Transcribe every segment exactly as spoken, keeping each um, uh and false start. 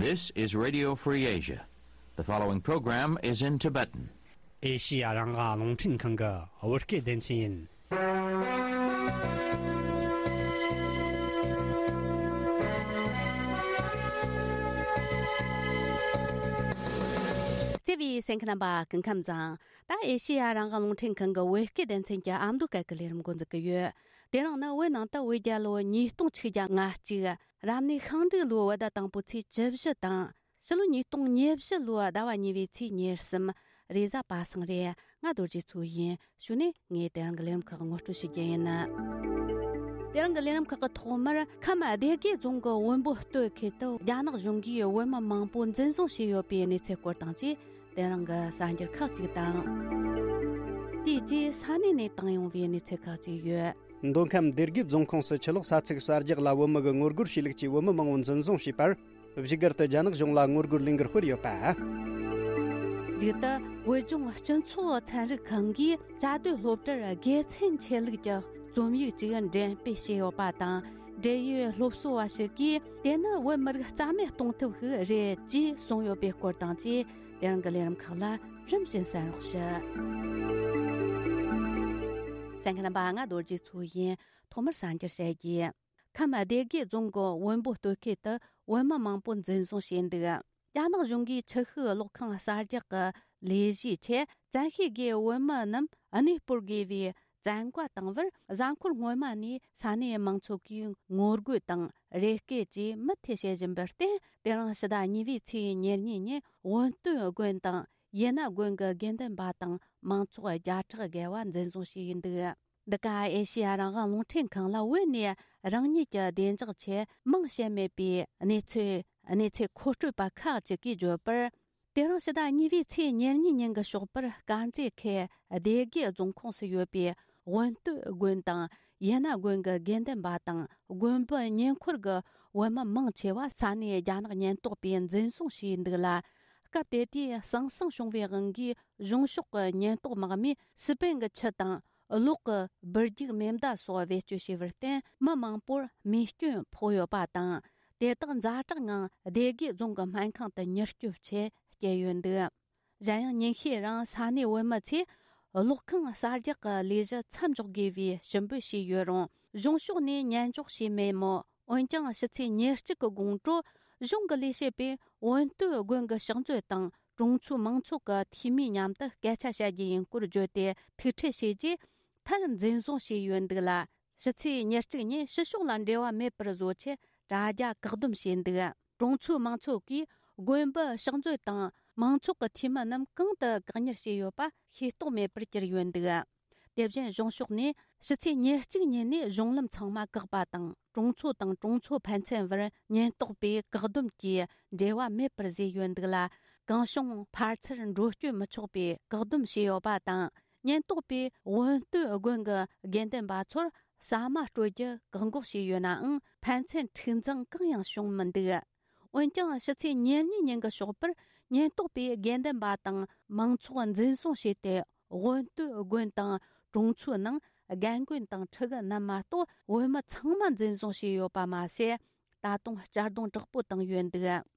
This is Radio Free Asia. The following program is in Tibetan. ཨེ་ཤི་ཡ་རང་དབང་རླུང་འཕྲིན་ཁང་གི་བོད་སྐད་སྡེ་ཚན་ཡིན། བརྩེ་བའི་གསན་མཁན་རྣམ་པ་སྐུ་ཁམས་བཟང་། ད་ཨེ་ཤི་ཡ་རང་དབང་རླུང་འཕྲིན་ཁང་གི་བོད་སྐད་སྡེ་ཚན་གྱི་ཨ་མདོ་སྐད་ཀྱི་ལས་རིམ་འགོ་འཛུགས་ཀྱི་ཡོད། དེ་རིང་ནི་བོད་ནང་དུ་བོད་རྒྱལ་ལོ་ཉིས་སྟོང་ཆིག་བརྒྱ་ང་གཅིག་རབ་གནས་ཤིང་འབྲུག་ལོའི་བོད་ཟླ་དང་པོའི་ཚེས་བཅུ་བཞི་དང་། ཕྱི་ལོ་ཉིས་སྟོང་ཉེར་བཞི་ལོའི་ཟླ་བ་གཉིས་པའི་ཚེས་ཉེར་གསུམ། རེས་གཟའ་པ་སངས་རེད། ང་རྡོ་རྗེ་མཚོ་ཡིན། གཞུག་ནས་ངས་དེ་རིང་གི་ལས་རིམ་ཁག་ངོ་སྤྲོད་ཞུ་རྒྱུ་ཡིན། དེ་རིང་གི་ལས་རིམ་ཁག་གི་ཐོག་མར་ཁམས་སྡེ་དགེ་རྫོང་གི་བོན་པོ་སྟོད་ཁུལ་དུ་རྒྱ་ནག་གཞུང་གིས་བོད་མི་མང་པོ་འཛིན་བཟུང་བྱས་ཡོད་པའི་གནས་ཚུལ་སྐོར་དང་བཅས། དེ་རིང་གི་གསར་འགྱུར་ཁག་ཅིག་དང་། དེའི་རྗེས་ས་གནས་ནས་བཏང་ཡོང་བའི་གནས་ཚུལ་ཁག་ཅིག་ཡོད། མདོ་ཁམས་སྡེ་དགེ་རྫོང་ཁོངས་སུ་ཆུ་ལོག་ས་ཚིགས་གསར་རྒྱག་ལ་བོད་མི་གི་ངོ་རྒོལ་བྱས་ལུགས་ཀྱིས་བོད་མི་མང་པོ་འཛིན་བཟུང་བྱས་པར། བཞུགས་སྒར་དུ་རྒྱ་ནག་གཞུང་ལ་ངོ་རྒོལ་ལས་འགུལ་སྤེལ་ཡོད་པ། མཇུག་ཏུ་བོད་ལྗོངས་སྤྱི་ཚོགས་ཚན་རིག་ཁང་གིས་བཅའ་སྡོད་སློབ་གྲྭར་དགེ་མཚན་ཆེ་ལུགས་ཀྱི་རྩོམ་ཡིག་ཅིག་འགྲེམས་སྤེལ་བྱས་ཡོད་པ་དང་། འབྲེལ་ཡོད་སློབ་གསོ་བ་ཞིག་གིས་དེ་ནི་བོད་མི་རིགས་རྩ་མེད་གཏོང་ཐབས་ཤིག་རེད་ཅེས་གསུངས་ཡོད་པའི་སྐོར་དང་བཅས། དེ་རིང་གི་ལས་རིམ་ཁག་ལ་རིམ་བཞིན་གསན་རོགས་ཞུ། གསན་མཁན་རྣམ་པ། ང་རྡོ་རྗེ་མཚོ་ཡིན། ཐོག་མར་གསར་འགྱུར་བཤད་རྒྱུ། ཁམས་སྡེ་དགེ་རྫོང་གི་བོན་པོ་སྟོད་ཁུལ་དུ་བོད་མི་མང་པོ་འཛིན་བཟུང་བྱས་འདུག་རྒྱ་ནག་གཞུང་གིས་ཆུ་ཤུགས་གློག་ཁང་གསར་རྒྱག་གི་ལས་གཞིའི་ཆེད་བཙན་ཤེད་ཀྱིས་བོད་མི་རྣམས་གནས་སྤོར་དགོས་པའི་བཙན་བཀའ་བཏང་བར། གཟའ་འཁོར་སྔོན་མ་ནས་ས་གནས་མང་ཚོགས་ཀྱིས་ངོ་རྒོལ་དང་རེ་སྐུལ་བཅས་མུ་མཐུད་བྱེད་བཞིན་པར་བརྟེན། དེ་རིང་ཕྱི་ཟླ་གཉིས་པའི་ཚེས་ཉེར་གཉིས་ཉིན་བོན་སྟོད་དགོན་དང་ཡེ་ན་དགོན་གྱི་དགེ་འདུན་པ་དང་མང་ཚོགས་བརྒྱ་ཕྲག་བརྒལ་བ་འཛིན་བཟུང་བྱས་ཡོད་འདུག་འདི་ག་ཨེ་ཤེ་ཡ་རང་དབང་རླུང་འཕྲིན་ཁང་ལ་བོད་ནས་རང་ཉིད་ཀྱི་བདེ་འཇགས་ཆེད་མིང་བཤད་མེད་པའི་གནས་ཚུལ་གནས་ཚུལ་མཁོ་སྤྲོད་པ་ཁག་ཅིག་གིས་བརྗོད་པར། དེ་རིང་ཕྱི་ཟླ་གཉིས་པའི་ཚེས་ཉེར་གཉིས་ཉིན་གྱི་ཞོགས་པར་དཀར་མཛེས་ཁུལ་སྡེ་དགེ་རྫོང་ཁོངས་སུ་ཡོད་པའི་བོན་སྟོད་དགོན་དང་ཡེ་ན་དགོན་གྱི་དགེ་འདུན་པ་དང་དགོན་པའི་ཉེ་འཁོར་གྱི་བོད་མི་མང་ཆེ་བ་ས་གནས་རྒྱ་ནག་ཉེན་རྟོག་པས་འཛིན་བཟུང་བྱས་འདུག་ལ། སྐབས་དེ་དུས་ཟང་ཟིང་བྱུང་བའི་དབང་གིས་གཞུང་ཕྱོགས་ཀྱི་ཉེན་རྟོག་དམག་མིས་སི་པན་གྱི་ཆུ་དང་གློག་གི་སྦུར་རྒྱུག་མེ་མདའ་སོགས་བེད་སྤྱོད་བྱས་པར་བརྟེན། མི་མང་པོར་རྨས་སྐྱོན་ཕོག་ཡོད་པ་དང་། དེ་དག་ཛ་དྲག་ངང་སྡེ་དགེ་རྫོང་གི་སྨན་ཁང་དུ་མྱུར་སྐྱོབ་ཆེད་བསྐྱལ་ཡོད་འདུག་གཞན་ཡང་ཉིན་ཤས་རིང་ས་གནས་བོད་མི་ཚོས་གློག་ཁང་གསར་རྒྱག་གི་ལས་གཞི་མཚམས་འཇོག་དགོས་པའི་ཞུ་འབོད་བྱས་ཡོད་རུང་། གཞུང་ཕྱོགས་ནས་ཉན་འཇོག་བྱས་མེད་མོད། འོན་ཀྱང་ཕྱི་ཚེས་ཉེར་གཅིག་གི་དགོང་དྲོ་གཞུང་གི་ལས་བྱེད་པས་བོན་སྟོད་དགོན་གྱི་ཕྱག་མཛོད་དང་གྲོང་ཚོའི་མང་ཚོགས་ཀྱི་འཐུས་མིའི་མཉམ་དུ་སྐད་ཆ་བཤད་རྒྱུ་ཡིན་སྐོར་བརྗོད་དེ་ཐུག་འཕྲད་བྱས་རྗེས། མཐར་འཛིན་བཟུང་བྱས་ཡོད་འདུག་ལ། ཕྱི་ཚེས་ཉེར་གཅིག་ཉིན་ཕྱི་ཕྱོགས་ལ་འབྲེལ་བ་མེད་པར་བཟོ་ཆེད་དྲ་རྒྱ་བཀག་སྡོམ་བྱས་འདུག་གྲོང་ཚོའི་མང་ཚོགས་ཀྱིས་དགོན་པའི་ཕྱག་མཛོད་དང་མང་ཚོགས་ཀྱི་འཐུས་མི་རྣམས་གང་དུ་བཀག་ཉར་བྱས་ཡོད་པ་ཤེས་རྟོགས་མེད་པར་གྱུར་ཡོད་འདུག་དེ་བཞིན་གཞུང་ཕྱོགས་ནས་ཕྱི་ཚེས་ཉེར་གཅིག་ཉིན་ནས་གཞུང་ལམ་ཚང་མ་བཀག་པ་དང་། གྲོང་ཚོ་དང་གྲོང་ཚོ་ཕན་ཚུན་བར་ཉེན་རྟོག་པས་བཀག་སྡོམ་གྱིས་འབྲེལ་བ་མེད་པར་བཟོས་ཡོད་འདུག་ལ། གང་བྱུང་ཕར་ཚུར་འགྲོ་སྐྱོད་མི་ཆོག་པའི་བཀག་སྡོམ་བྱས་ཡོད་པ་དང་། ཉེན་རྟོག་པས་བོན་སྟོད་དགོན་གྱི་དགེ་འདུན་པ་ཚོར་ཟ་མ་སྤྲོད་རྒྱུ་བཀག་འགོག་བྱས་ཡོད་ནའང་། ཕན་ཚུན་འཁྲུག་འཛིང་གང་ཡང་བྱུང་མི་འདུག་འོན་ཀྱང་ཕྱི་ཚེས་ཉེར་གཉིས་ཉིན་གྱི་ཞོགས་པར་ཉེན་རྟོག་པས་དགེ་འདུན་པ་དང་མང་ཚོགས་འཛིན་བཟུང་བྱས་ཏེ། དབོན་སྟོད་དགོན་དང་གྲོང་ཚོའི་ནང་རྒན་རྒོན་དང་ཕྲུ་གུ་རྣམས་མ་གཏོགས་བོད་མི་ཚང་མ་འཛིན་བཟུང་བྱས་ཡོད་པ་མ་ཟད། ད་དུང་གཅར་རྡུང་དྲག་པོ་བཏང་ཡོད་འདུག་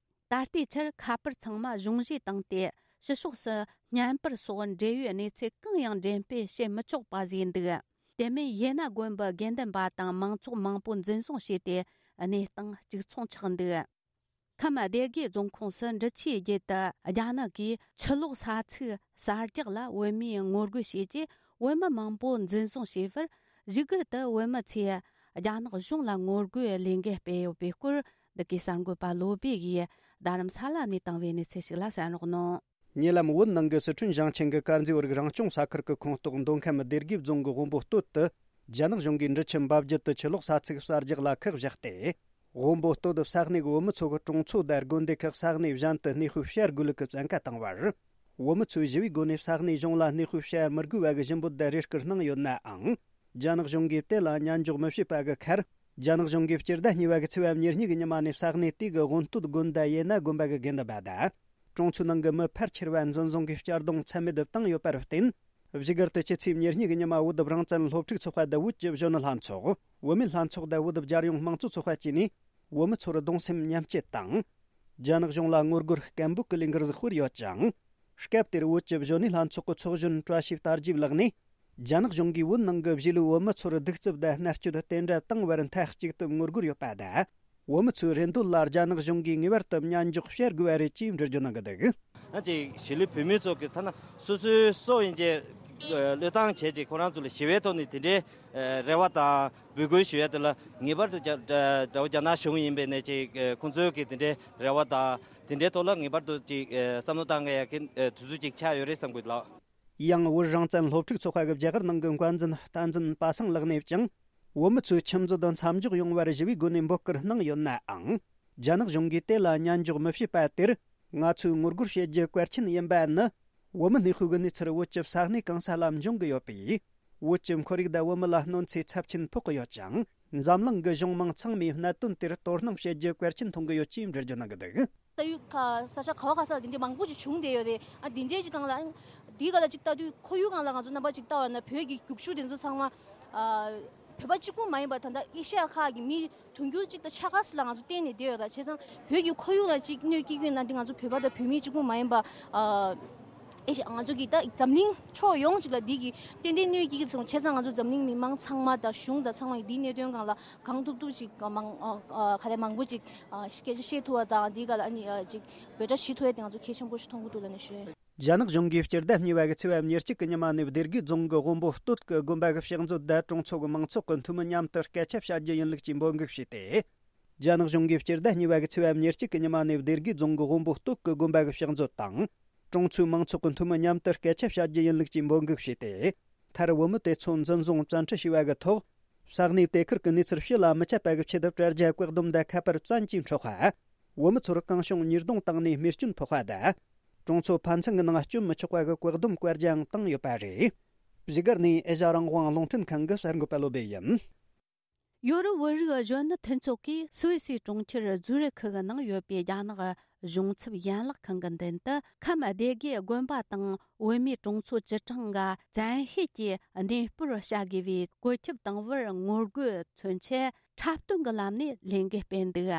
ད་ལྟའི་ཆར་ཁ་པར་ཚང་མ་གཞུང་བཞེས་བཏང་སྟེ་ཕྱི་ཕྱོགས་སུ་བརྙན་པར་སོགས་འབྲེལ་ཡོད་གནས་ཚུལ་གང་ཡང་འགྲེམས་སྤེལ་བྱེད་མི་ཆོག་པ་བཟོས་འདུག་དེ་མིན་ཡེ་ན་དགོན་པའི་དགེ་འདུན་པ་དང་མང་ཚོགས་མང་པོ་འཛིན་བཟུང་བྱས་ཏེ་གནས་སྟངས་གཅིག་མཚུངས་ཆགས་འདུག་ཁམས་སྡེ་དགེ་རྫོང་ཁོངས་སུ་འབྲི་ཆུའི་རྒྱུད་དུ་རྒྱ་ནག་གིས་ཆུ་ལོག་ས་ཚིགས་གསར་རྒྱག་ལ་བོད་མིས་ངོ་རྒོལ་བྱས་རྗེས། བོད་མི་མང་པོ་འཛིན་བཟུང་བྱས་པར། བཞུགས་སྒར་དུ་བོད་མི་ཚོས་རྒྱ་ནག་གཞུང་ལ་ངོ་རྒོལ་ལས་འགུལ་སྤེལ་ཡོད་པའི་སྐོར། འདི་གའི་གསར་འགོད་པ་བློ་བྷེ་ཡིས་རྡ་རམ་ས་ལ་ནས་བཏང་བའི་གནས་ཚུལ་ཞིག་ལ་གསན་རོགས་གནང་། ཉེ་ལམ་བོད་ནང་གི་སི་ཁྲོན་ཞིང་ཆེན་གྱི་དཀར་མཛེས་བར་རང་སྐྱོང་ས་ཁུལ་གྱི་ཁོངས་གཏོགས་མདོ་ཁམས་སྡེ་དགེ་རྫོང་གི་དབོན་པོ་སྟོད་དུ། རྒྱ་ནག་གཞུང་གིས་འབྲི་ཆུ་འབབ་རྒྱུད་དུ་ཆུ་ལོག་ས་ཚིགས་གསར་རྒྱག་ལ་ཁག་བཞག་སྟེ། དབོན་པོ་སྟོད་ས་གནས་ཀྱི་བོད་མི་ཚོ་གི་གྲོང་ཚོ་དང་དགོན་སྡེ་ཁག་ས་གནས་གཞན་དུ་གནས་སྤོས་བྱ་དགོས་ལུགས་ཀྱི་བཙན་བཀའ་བཏང་བར། བོད་མི་ཚོས་ཞི་བའི་སྒོ་ནས་ས་གནས་གཞུང་ལ་གནས་སྤོས་བྱ་མི་དགོས་པ་གི་ཞུ་འབོད་དང་རེ་སྐུལ་གནང་ཡོད་ནའང་། རྒྱ་ནག་གཞུང་གིས་དེ་ལ་ཉན་འཇོག་མི་བྱེད་པ་གི་ཁར། རྒྱ་ནག་གཞུང་གིས་སྤྱི་ཟླ་གཉིས་པ་གི་ཚེས་པ་ཉེར་གཉིས་ཀྱི་ཉི་མ་ནས་ས་གནས་དེ་གི་དབོན་སྟོད་དགོན་དང་ཡེ་ན་དགོན་པ་གི་དགེ་འདུན་པ་དང་། གྲོང་ཚོའི་ནང་གི་མི་ཕལ་ཆེ་བ་འཛིན་བཟུང་གིས་གཅར་རྡུང་ཚད་མེད་དུ་བཏང་ཡོད་པར་བརྟེན། བཞུགས་སྒར་དུ་ཕྱི་ཚེས་ཉེར་གཉིས་ཀྱི་ཉི་མ་བོད་རང་བཙན་སློབ་ཕྲུག་ཚོགས་པ་དང་བོད་ཀྱི་གཞོན་ནུ་ལྷན་ཚོགས། བོད་མི་ལྷན་ཚོགས་དང་བོད་རྒྱལ་ཡོངས་དམངས་གཙོ་ཚོགས་པ་བཅས་ནས། བོད་མི་ཚོར་གདུང་སེམས་མཉམ་སྐྱེད་དང་། རྒྱ་ནག་གཞུང་ལ་ངོ་རྒོལ་སྐད་འབོད་ཀྱི་ལས་འགུལ་ཟིག་སྤེལ་ཡོད་ཅིང་། སྐབས་དེར་བོད་ཀྱི་གཞོན་ནུ་ལྷན་ཚོགས་ཀྱི་ཚོགས་གཞོན་བཀྲ་ཤིས་དར་རྒྱས་ལགས་ནས། རྒྱ་ནག་གཞུང་གིས་བོད་ནང་གི་གཞིས་ལུས་བོད་མི་ཚོར་གདུག་རྩུབ་དང་མནར་གཅོད་དེ་འདྲ་བཏང་བར་མཐའ་གཅིག་ཏུ་ངོ་རྒོལ་ཡོད་པ་དང་། བོད་མི་ཚོའི་རེ་འདོད་ལ་རྒྱ་ནག་གཞུང་གིས་ངེས་པར་དུ་མཉན་འཇོག་བྱེད་དགོས་པ་རེད་ཅེས་འགྲེལ་བརྗོད་གནང་གི་འདུག་ང་ཅིག་གཞིས་ལུས་བོད་མི་ཚོ་གི་ཐ་ན་སོ་སོའི་སྲོག་ཡིན་གྱི་བློས་བཏང་བྱས་ཅིག་ཁོ་རང་ཚོ་ལ་ཞི་བའི་ཐོག་ནས་དེ་འདྲའི་རེ་བ་དང་འབོད་སྐུལ་ཞུ་ཡ་དེ་ལ་ངེས་པར་དུ་རྒྱ་དགྲ་བོ་རྒྱ་ནག་གཞུང་ཡིན་པའི་ནས་ཅིག་ཁོང་ཚོའི་གི་དེ་འདྲའི་རེ་བ་དང་དེ་འདྲའི་ཐོག་ལ་ངེས་པར་དུ་ཅིག་བསམ་བློ་བཏང་དགོས་ཡ་གི་དུས་ཚོད་ཅིག་ཆགས་ཡོད་རེད་བསམ་གི་ལགས། ཡང་བོད་རང་བཙན་སློབ་ཕྲུག་ཚོགས་པ་གི་རྒྱ་གར་ནང་གི་འགོ་འཛིན་བསྟན་འཛིན་པ་སངས་ལགས་ནས་ཀྱང་། བོད་མི་ཚོའི་ཁྱིམ་མཛོད་མཚམས་འཇོག་ཡོང་བར་ཞི་བའི་སྒོ་ནས་འབོད་སྐུལ་གནང་ཡོད་ནའང་། རྒྱ་ནག་གཞུང་གིས་དེ་ལ་མཉན་འཇོག་མི་བྱེད་པ་དེར། ང་ཚོས་ངོ་རྒོལ་བྱེད་རྒྱུ་གལ་ཆེན་ཡིན་པ་ནི། བོད་མི་གནས་སྤོས་ཀྱི་གནས་ཚུལ་བོད་ཀྱི་ས་གནས་གང་ས་ལ་འབྱུང་གི་ཡོད་པས། བོད་ཀྱི་ཁོར་ཡུག་དང་བོད་མི་ལ་གནོད་འཚེ་ཚབས་ཆེན་ཕོག་གི་ཡོད་ཅིང་། འཛམ་གླིང་གི་གཞུང་མང་ཚང་མས་གནད་དོན་དེར་དོ་སྣང་བྱེད་རྒྱུ་གལ་ཆེན་མཐོང་གི་ཡོད་ཅེས་འགྲེལ་བརྗོད་གནང་གི་འདུག་ལྟ་ཡུལ་ཁ་ས་ཆ་ག་བ་ག་ས་ལ་འདི་འདྲའི་མང་པོ་ཅིག་བྱུང་བསྡད་ཡོད་རེད། ཨ་འདི་འདྲའི་ཅིག་སྒང་ལ་འདིའི་སྒང་ལ་ཅིག་ལྟ་དུས་ཁོར་ཡུག་སྒང་ལ་ང་ཚོ་རྣམ་པ་ཅིག་ལྟ་བ་ན་བོད་ཀྱི་རྒྱུག་ཤུགས་དེ་ཚོ་ཚང་མ་ཨ་བོད་པ་གཅིག་པུ་མ་ཡིན་པར་ད་ལྟ་ཨེ་ཤ་ཡ་ཁག་གི་མི་དུང་ཕྱུར་གཅིག་དང་ཕྱེད་ཀ་ཙམ་ལ་ང་ཚོ་བརྟེན་ནས་བསྡད་ཡོད། ད་བྱས་ཙང་བོད་ཀྱི་ཁོར་ཡུག་ལ་ཅིག་གནོད་སྐྱེལ་གྱི་ཡོད་ན་འདི་ང་ཚོ་བོད་པ་དང་བོད་མི་གཅིག་པུ་མ་ཡིན་པ་ཨ་ཨེ་ཤ་ང་ཚོ་གི་ད་འཛམ་གླིང་ཕྱོགས་ཡོངས་ཅིག་ལ་འདི་གི་ཏན་ཏན་གནོད་སྐྱེལ་གྱི་ཙང་བྱས་ཙང་ང་ཚོ་འཛམ་གླིང་མི་མང་ཚང་མ་དང་གཞུང་དང་ཚང་མ་གི་འདིའི་གནད་དོན་སྒང་ལ་གང་ཐུབ་ཐུབ་ཅིག་མང་ཨ་ཨ་ག་རེ་མང་པོ་ཅིག་ཨ་སྐད་ཆ་བཤད་ཐུབ་པ་དང་འདི་ག་ལ་ཨ་ནི་ཨ་ཅིག་འབོད་སྒྲ་ཞུ་ཐུབ་ཡ་དེ་ང་ཚོ་གལ་ཆེན་པོ་ཞིག་མཐོང་གི་འདུག་ལབ་ནས་ཞུ། རྒྱ་ནག་གཞུང་གིས་སྤྱི་ཟླ་གཉིས་པ་གི་ཚེས་པ་ཉེར་གཅིག་གི་ཉི་མ་ནས་སྡེ་དགེ་རྫོང་གི་དབོན་པོ་སྟོད་ཀྱི་དགོན་པ་གི་ཕྱག་མཛོད་དང་གྲོང་ཚོ་གི་མང་ཚོགས་ཀྱི་འཐུས་མི་མཉམ་དུ་སྐད་ཆ་བཤད་རྒྱུ་ཡིན་ལུགས་ཀྱི་འབོད་འགུག་བྱས་ཏེ། རྒྱ་ནག་གཞུང་གིས་སྤྱི་ཟླ་གཉིས་པ་གི་ཚེས་པ་ཉེར་གཅིག་གི་ཉི་མ་ནས་སྡེ་དགེ་རྫོང་གི་དབོན་པོ་སྟོད་ཀྱི་དགོན་པ་གི་ཕྱག་མཛོད་དང་། གྲོང་ཚོའི་མང་ཚོགས་ཀྱི་འཐུས་མི་མཉམ་དུ་སྐད་ཆ་བཤད་རྒྱུ་ཡིན་ལུགས་ཀྱི་འབོད་འགུག་བྱས་ཏེ། མཐར་བོད་མི་དེ་ཚོ་འཛིན་བཟུང་བཙན་ཁྲིད་བྱས་པ་གི་ཐོག་ས་གནས་དེ་ཁུལ་གྱི་གནས་ཚུལ་ཕྱི་ལ་མི་ཁྱབ་པ་གི་ཆེད་དུ་དྲ་རྒྱ་བཀག་སྡོམ་དང་ཁ་པར་བཙན་གྱིས་འཕྲོག་པ། བོད་མི་ཚོར་གང་བྱུང་ཉེས་རྡུང་བཏང་ནས་རྨས་སྐྱོན་ཕོག་པ་དང་། གྲོང་ཚོ་ཕན་ཚུན་གྱི་ནང་སྐྱོན་མི་ཆོག་པ་གི་བཀག་སྡོམ་བཀའ་རྒྱའང་བཏང་ཡོད་པ་རེད། བཞུགས་སྒར་ནས་ཨེ་ཤ་རང་དབང་རླུང་འཕྲིན་ཁང་གི་གསར་འགོད་པ་བློ་བྷེ་ཡིན། ཡོ་རོབ་བོད་རིགས་གཞོན་ནུ་མཐུན་ཚོགས་ཀྱིས་སུད་སིའི་གྲོང་ཁྱེར་ཛུ་རིག་ཁུལ་གྱི་ནང་ཡོད་པའི་རྒྱ་ནག་གཞུང་ཚབ་ཡན་ལག་ཁང་གི་མདུན་དུ་ཁམས་སྡེ་དགེ་དགོན་པ་དང་བོད་མིའི་གྲོང་ཚོ་བཅུ་གྲངས་ཀྱི་བཙན་ཤེད་ཀྱིས་གནས་སྤོར་བྱ་དགོས་པའི་བཀོད་ཁྱབ་བཏང་བར་ངོ་རྒོལ་མཚོན་ཆེད་འཁྲབ་སྟོན་གྱི་ལམ་ནས་ལས་འགུལ་སྤེལ་འདུག་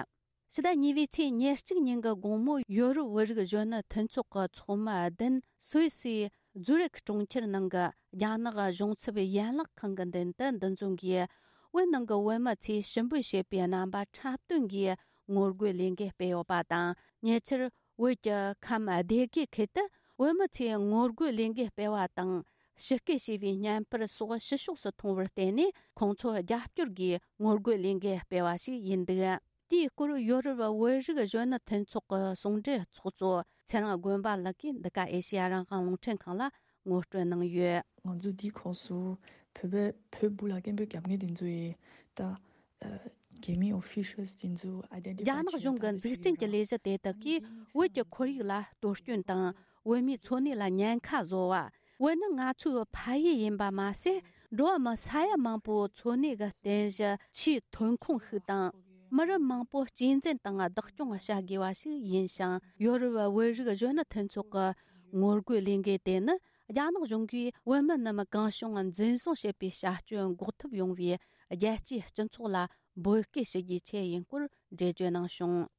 ཕྱི་ཟླ་གཉིས་པའི་ཚེས་ཉེར་གཅིག་ཉིན་གྱི་དགོང་མོ་ཡོ་རོབ་བོད་རིགས་གཞོན་ནུ་མཐུན་ཚོགས་ཀྱི་ཚོགས་མི་བདུན་སུད་སིའི་ཛུ་རིག་གྲོང་ཁྱེར་ནང་གི་རྒྱ་ནག་གཞུང་ཚབ་ཡན་ལག་ཁང་གི་མདུན་དུ་འདུ་འཛོམས་ཀྱིས། བོད་ནང་གི་བོད་མི་ཚོས་ཞུ་འབོད་བྱེད་པའི་རྣམ་པ་འཁྲབ་སྟོན་གྱིས་ངོ་རྒོལ་ལས་འགུལ་སྤེལ་ཡོད་པ་དང་། ཉེ་ཆར་བོད་ཀྱི་ཁམས་སྡེ་དགེ་ཁུལ་དུ་བོད་མི་ཚོས་ངོ་རྒོལ་ལས་འགུལ་སྤེལ་བ་དང་། ཕྱི་སྐད་བྱས་པའི་བརྙན་པར་སོགས་ཕྱི་ཕྱོགས་སུ་མཐོང་བར་བརྟེན་ནས། ཁོང་ཚོ་རྒྱབ་སྐྱོར་གྱིས་ངོ་རྒོལ་ལས་འགུལ་སྤེལ་བ་ཞིག་ཡིན་འདུག་དེའི་སྐོར་ཡོ་རོབ་བོད་རིགས་གཞོན་ནུ་མཐུན་ཚོགས་ཀྱི་ཟུང་འབྲེལ་ཚོགས་གཙོ་ཚེ་རིང་དགོན་པ་ལགས་ཀྱིས་འདི་ག་ཨེ་ཤེ་ཡ་རང་དབང་རླུང་འཕྲིན་ཁང་ལ་ངོ་སྤྲོད་གནང་ཡོད། ང་ཚོ་འདིའི་ཁོངས་སུ་བོད་པའི་བོད་སྦུག་ལ་སྐད་འབོད་རྒྱབ་མཁན་དེ་ཚོ་ཡིས་ད་ཨ་གེ་མིང་ཨོ་ཕི་ཤལ་དེ་ཚོ་ཨའི་ཌེན་ཊི་ཕའི་རྒྱ་ནག་གཞུང་གི་འཛུགས་སྐྲུན་གྱི་ལས་གཞི་དེ་དག་གིས་བོད་ཀྱི་ཁོར་ཡུག་ལ་གཏོར་སྐྱོན་དང་། བོད་མིའི་འཚོ་གནས་ལ་ཉེན་ཁ་བཟོ་བ། བོད་ནི་ང་ཚོའི་ཕ་ཡུལ་ཡིན་པ་མ་ཟད། འགྲོ་བ་མི་ས་ཡ་མང་པོའི་འཚོ་གནས་ཀྱི་རྟེན་གཞི་ཆེས་ཐོན་ཁུངས་ཤིག་དང་། མི་རབས་མང་པོ་གཅེས་འཛིན་དང་བདག་སྐྱོང་བྱ་དགོས་པ་ཞིག་ཡིན་ཞིང་། ཡོ་རོབ་བོད་རིགས་གཞོན་ནུ་མཐུན་ཚོགས་ཀྱི་ངོ་རྒོལ་ལས་འགུལ་དེ་ནི། རྒྱ་ནག་གཞུང་གིས་བོད་མི་རྣམས་གང་བྱུང་འཛིན་བཟུང་བྱེད་པའི་བྱ་སྤྱོད་འགོག་ཐབས་ཡོང་བའི་རྒྱལ་སྤྱིའི་སྤྱི་ཚོགས་ལ་འབོད་སྐུལ་ཞུ་རྒྱུའི་ཆེད་ཡིན་སྐོར་འགྲེལ་བརྗོད་གནང་བྱུང་།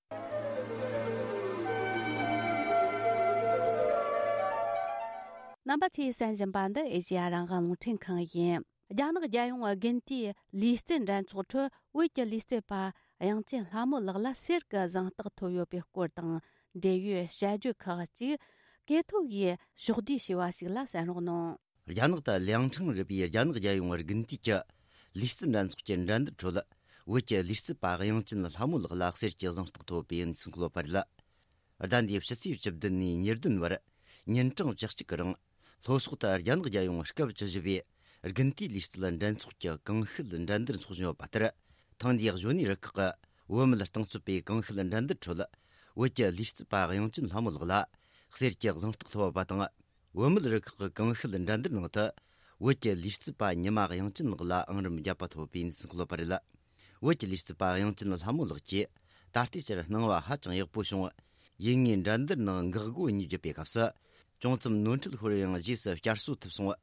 རྣམ་པ་ཚོས་གསན་བཞིན་པ་འདི་ཨེ་ཤེ་ཡ་རང་དབང་རླུང་འཕྲིན་ཁང་ཡིན། རྒྱ་ནག་རྒྱལ་ཡོངས་དགུན་དུས་ལུས་རྩལ་འགྲན་ཚོགས་ཁྲོད་བོད་ཀྱི་ལུས་རྩལ་པ་དབྱངས་ཅན་ལྷ་མོ་ལགས་ལ་གསེར་གྱི་གཟེངས་རྟགས་ཐོབ་ཡོད་པའི་སྐོར་དང་འབྲེལ་ཡོད་དཔྱད་བརྗོད་ཁག་ཅིག་གེ་ཐོ་གིས་ཕྱོགས་བསྡུས་བྱས་པ་ཞིག་ལ་གསན་རོགས་གནང་། རྒྱ་ནག་ཏུ་ལིའང་ཁྲང་རུ་པའི་རྒྱ་ནག་རྒྱལ་ཡོངས་དགུན་དུས་ཀྱི་ལུས་རྩལ་འགྲན་ཚོགས་ཀྱི་འགྲན་བསྡུར་ཁྲོད། བོད་ཀྱི་ལུས་རྩལ་པ་དབྱངས་ཅན་ལྷ་མོ་ལགས་ལ་གསེར་གྱི་གཟེངས་རྟགས་ཐོབ་པའི་ཡིན་ཟིན་ཁུལ་བར་ལ། ཟླ་འདིའི་ཕྱི་ཚེས་བཅུ་བདུན་ནས་ཉེར་བདུན་བར་ཉིན་གྲངས་བཅུ་གཅིག་གི་རིང་། ལྷོ་སོག་ཏུ་རྒྱ་ནག་རྒྱལ་ཡོངས་སྐབས་བཅུ་བཞི་པའི་དགུན་དུས་ལུས་རྩལ་འགྲན་ཚོགས་ཀྱི་གང་ཤེད་འགྲན་བསྡུར་འཚོགས་བཞིན་ཡོད་པ་ལྟར། ཐེངས་འདིའི་གཞོན་ནུའི་རུ་ཁག་གི་བོད་མི་རྟིང་རྩོད་པའི་གང་ཤེད་འགྲན་བསྡུར་ཁྲོད། བོད་ཀྱི་ལུས་རྩལ་པ་དབྱངས་ཅན་ལྷ་མོ་ལགས་ལ་གསེར་གྱི་གཟེངས་རྟགས་ཐོབ་པ་དང་། བུད་མེད་རུ་ཁག་གི་གང་ཤེད་འགྲན་བསྡུར་ནང་དུ། བོད་ཀྱི་ལུས་རྩལ་པ་ཉི་མ་དབྱངས་ཅན་ལགས་ལ་ཨང་རིམ་བརྒྱད་པ་ཐོབ་པའི་འཛིན་སྐུལ་བར་རེད། བོད་ཀྱི་ལུས་རྩལ་པ་དབྱངས་ཅན་ལྷ་མོ་ལགས་ཀྱིས་ད་ལྟའི་ཆར་སྣང་བ་ཧ་ཅང་ཡག་པོ་བྱུང་། ཡིན་ངེས་འགྲན་བསྡུར་ནང་འགག་སྒོ་གཉིས་བརྒྱུད་པའི་སྐབས་སུ། ཅུང་ཙམ་ནོར་འཁྲུལ་ཤོར་ཡང་རྗེས་སུ་བསྐྱར་གསོ་ཐུབ་སོང་།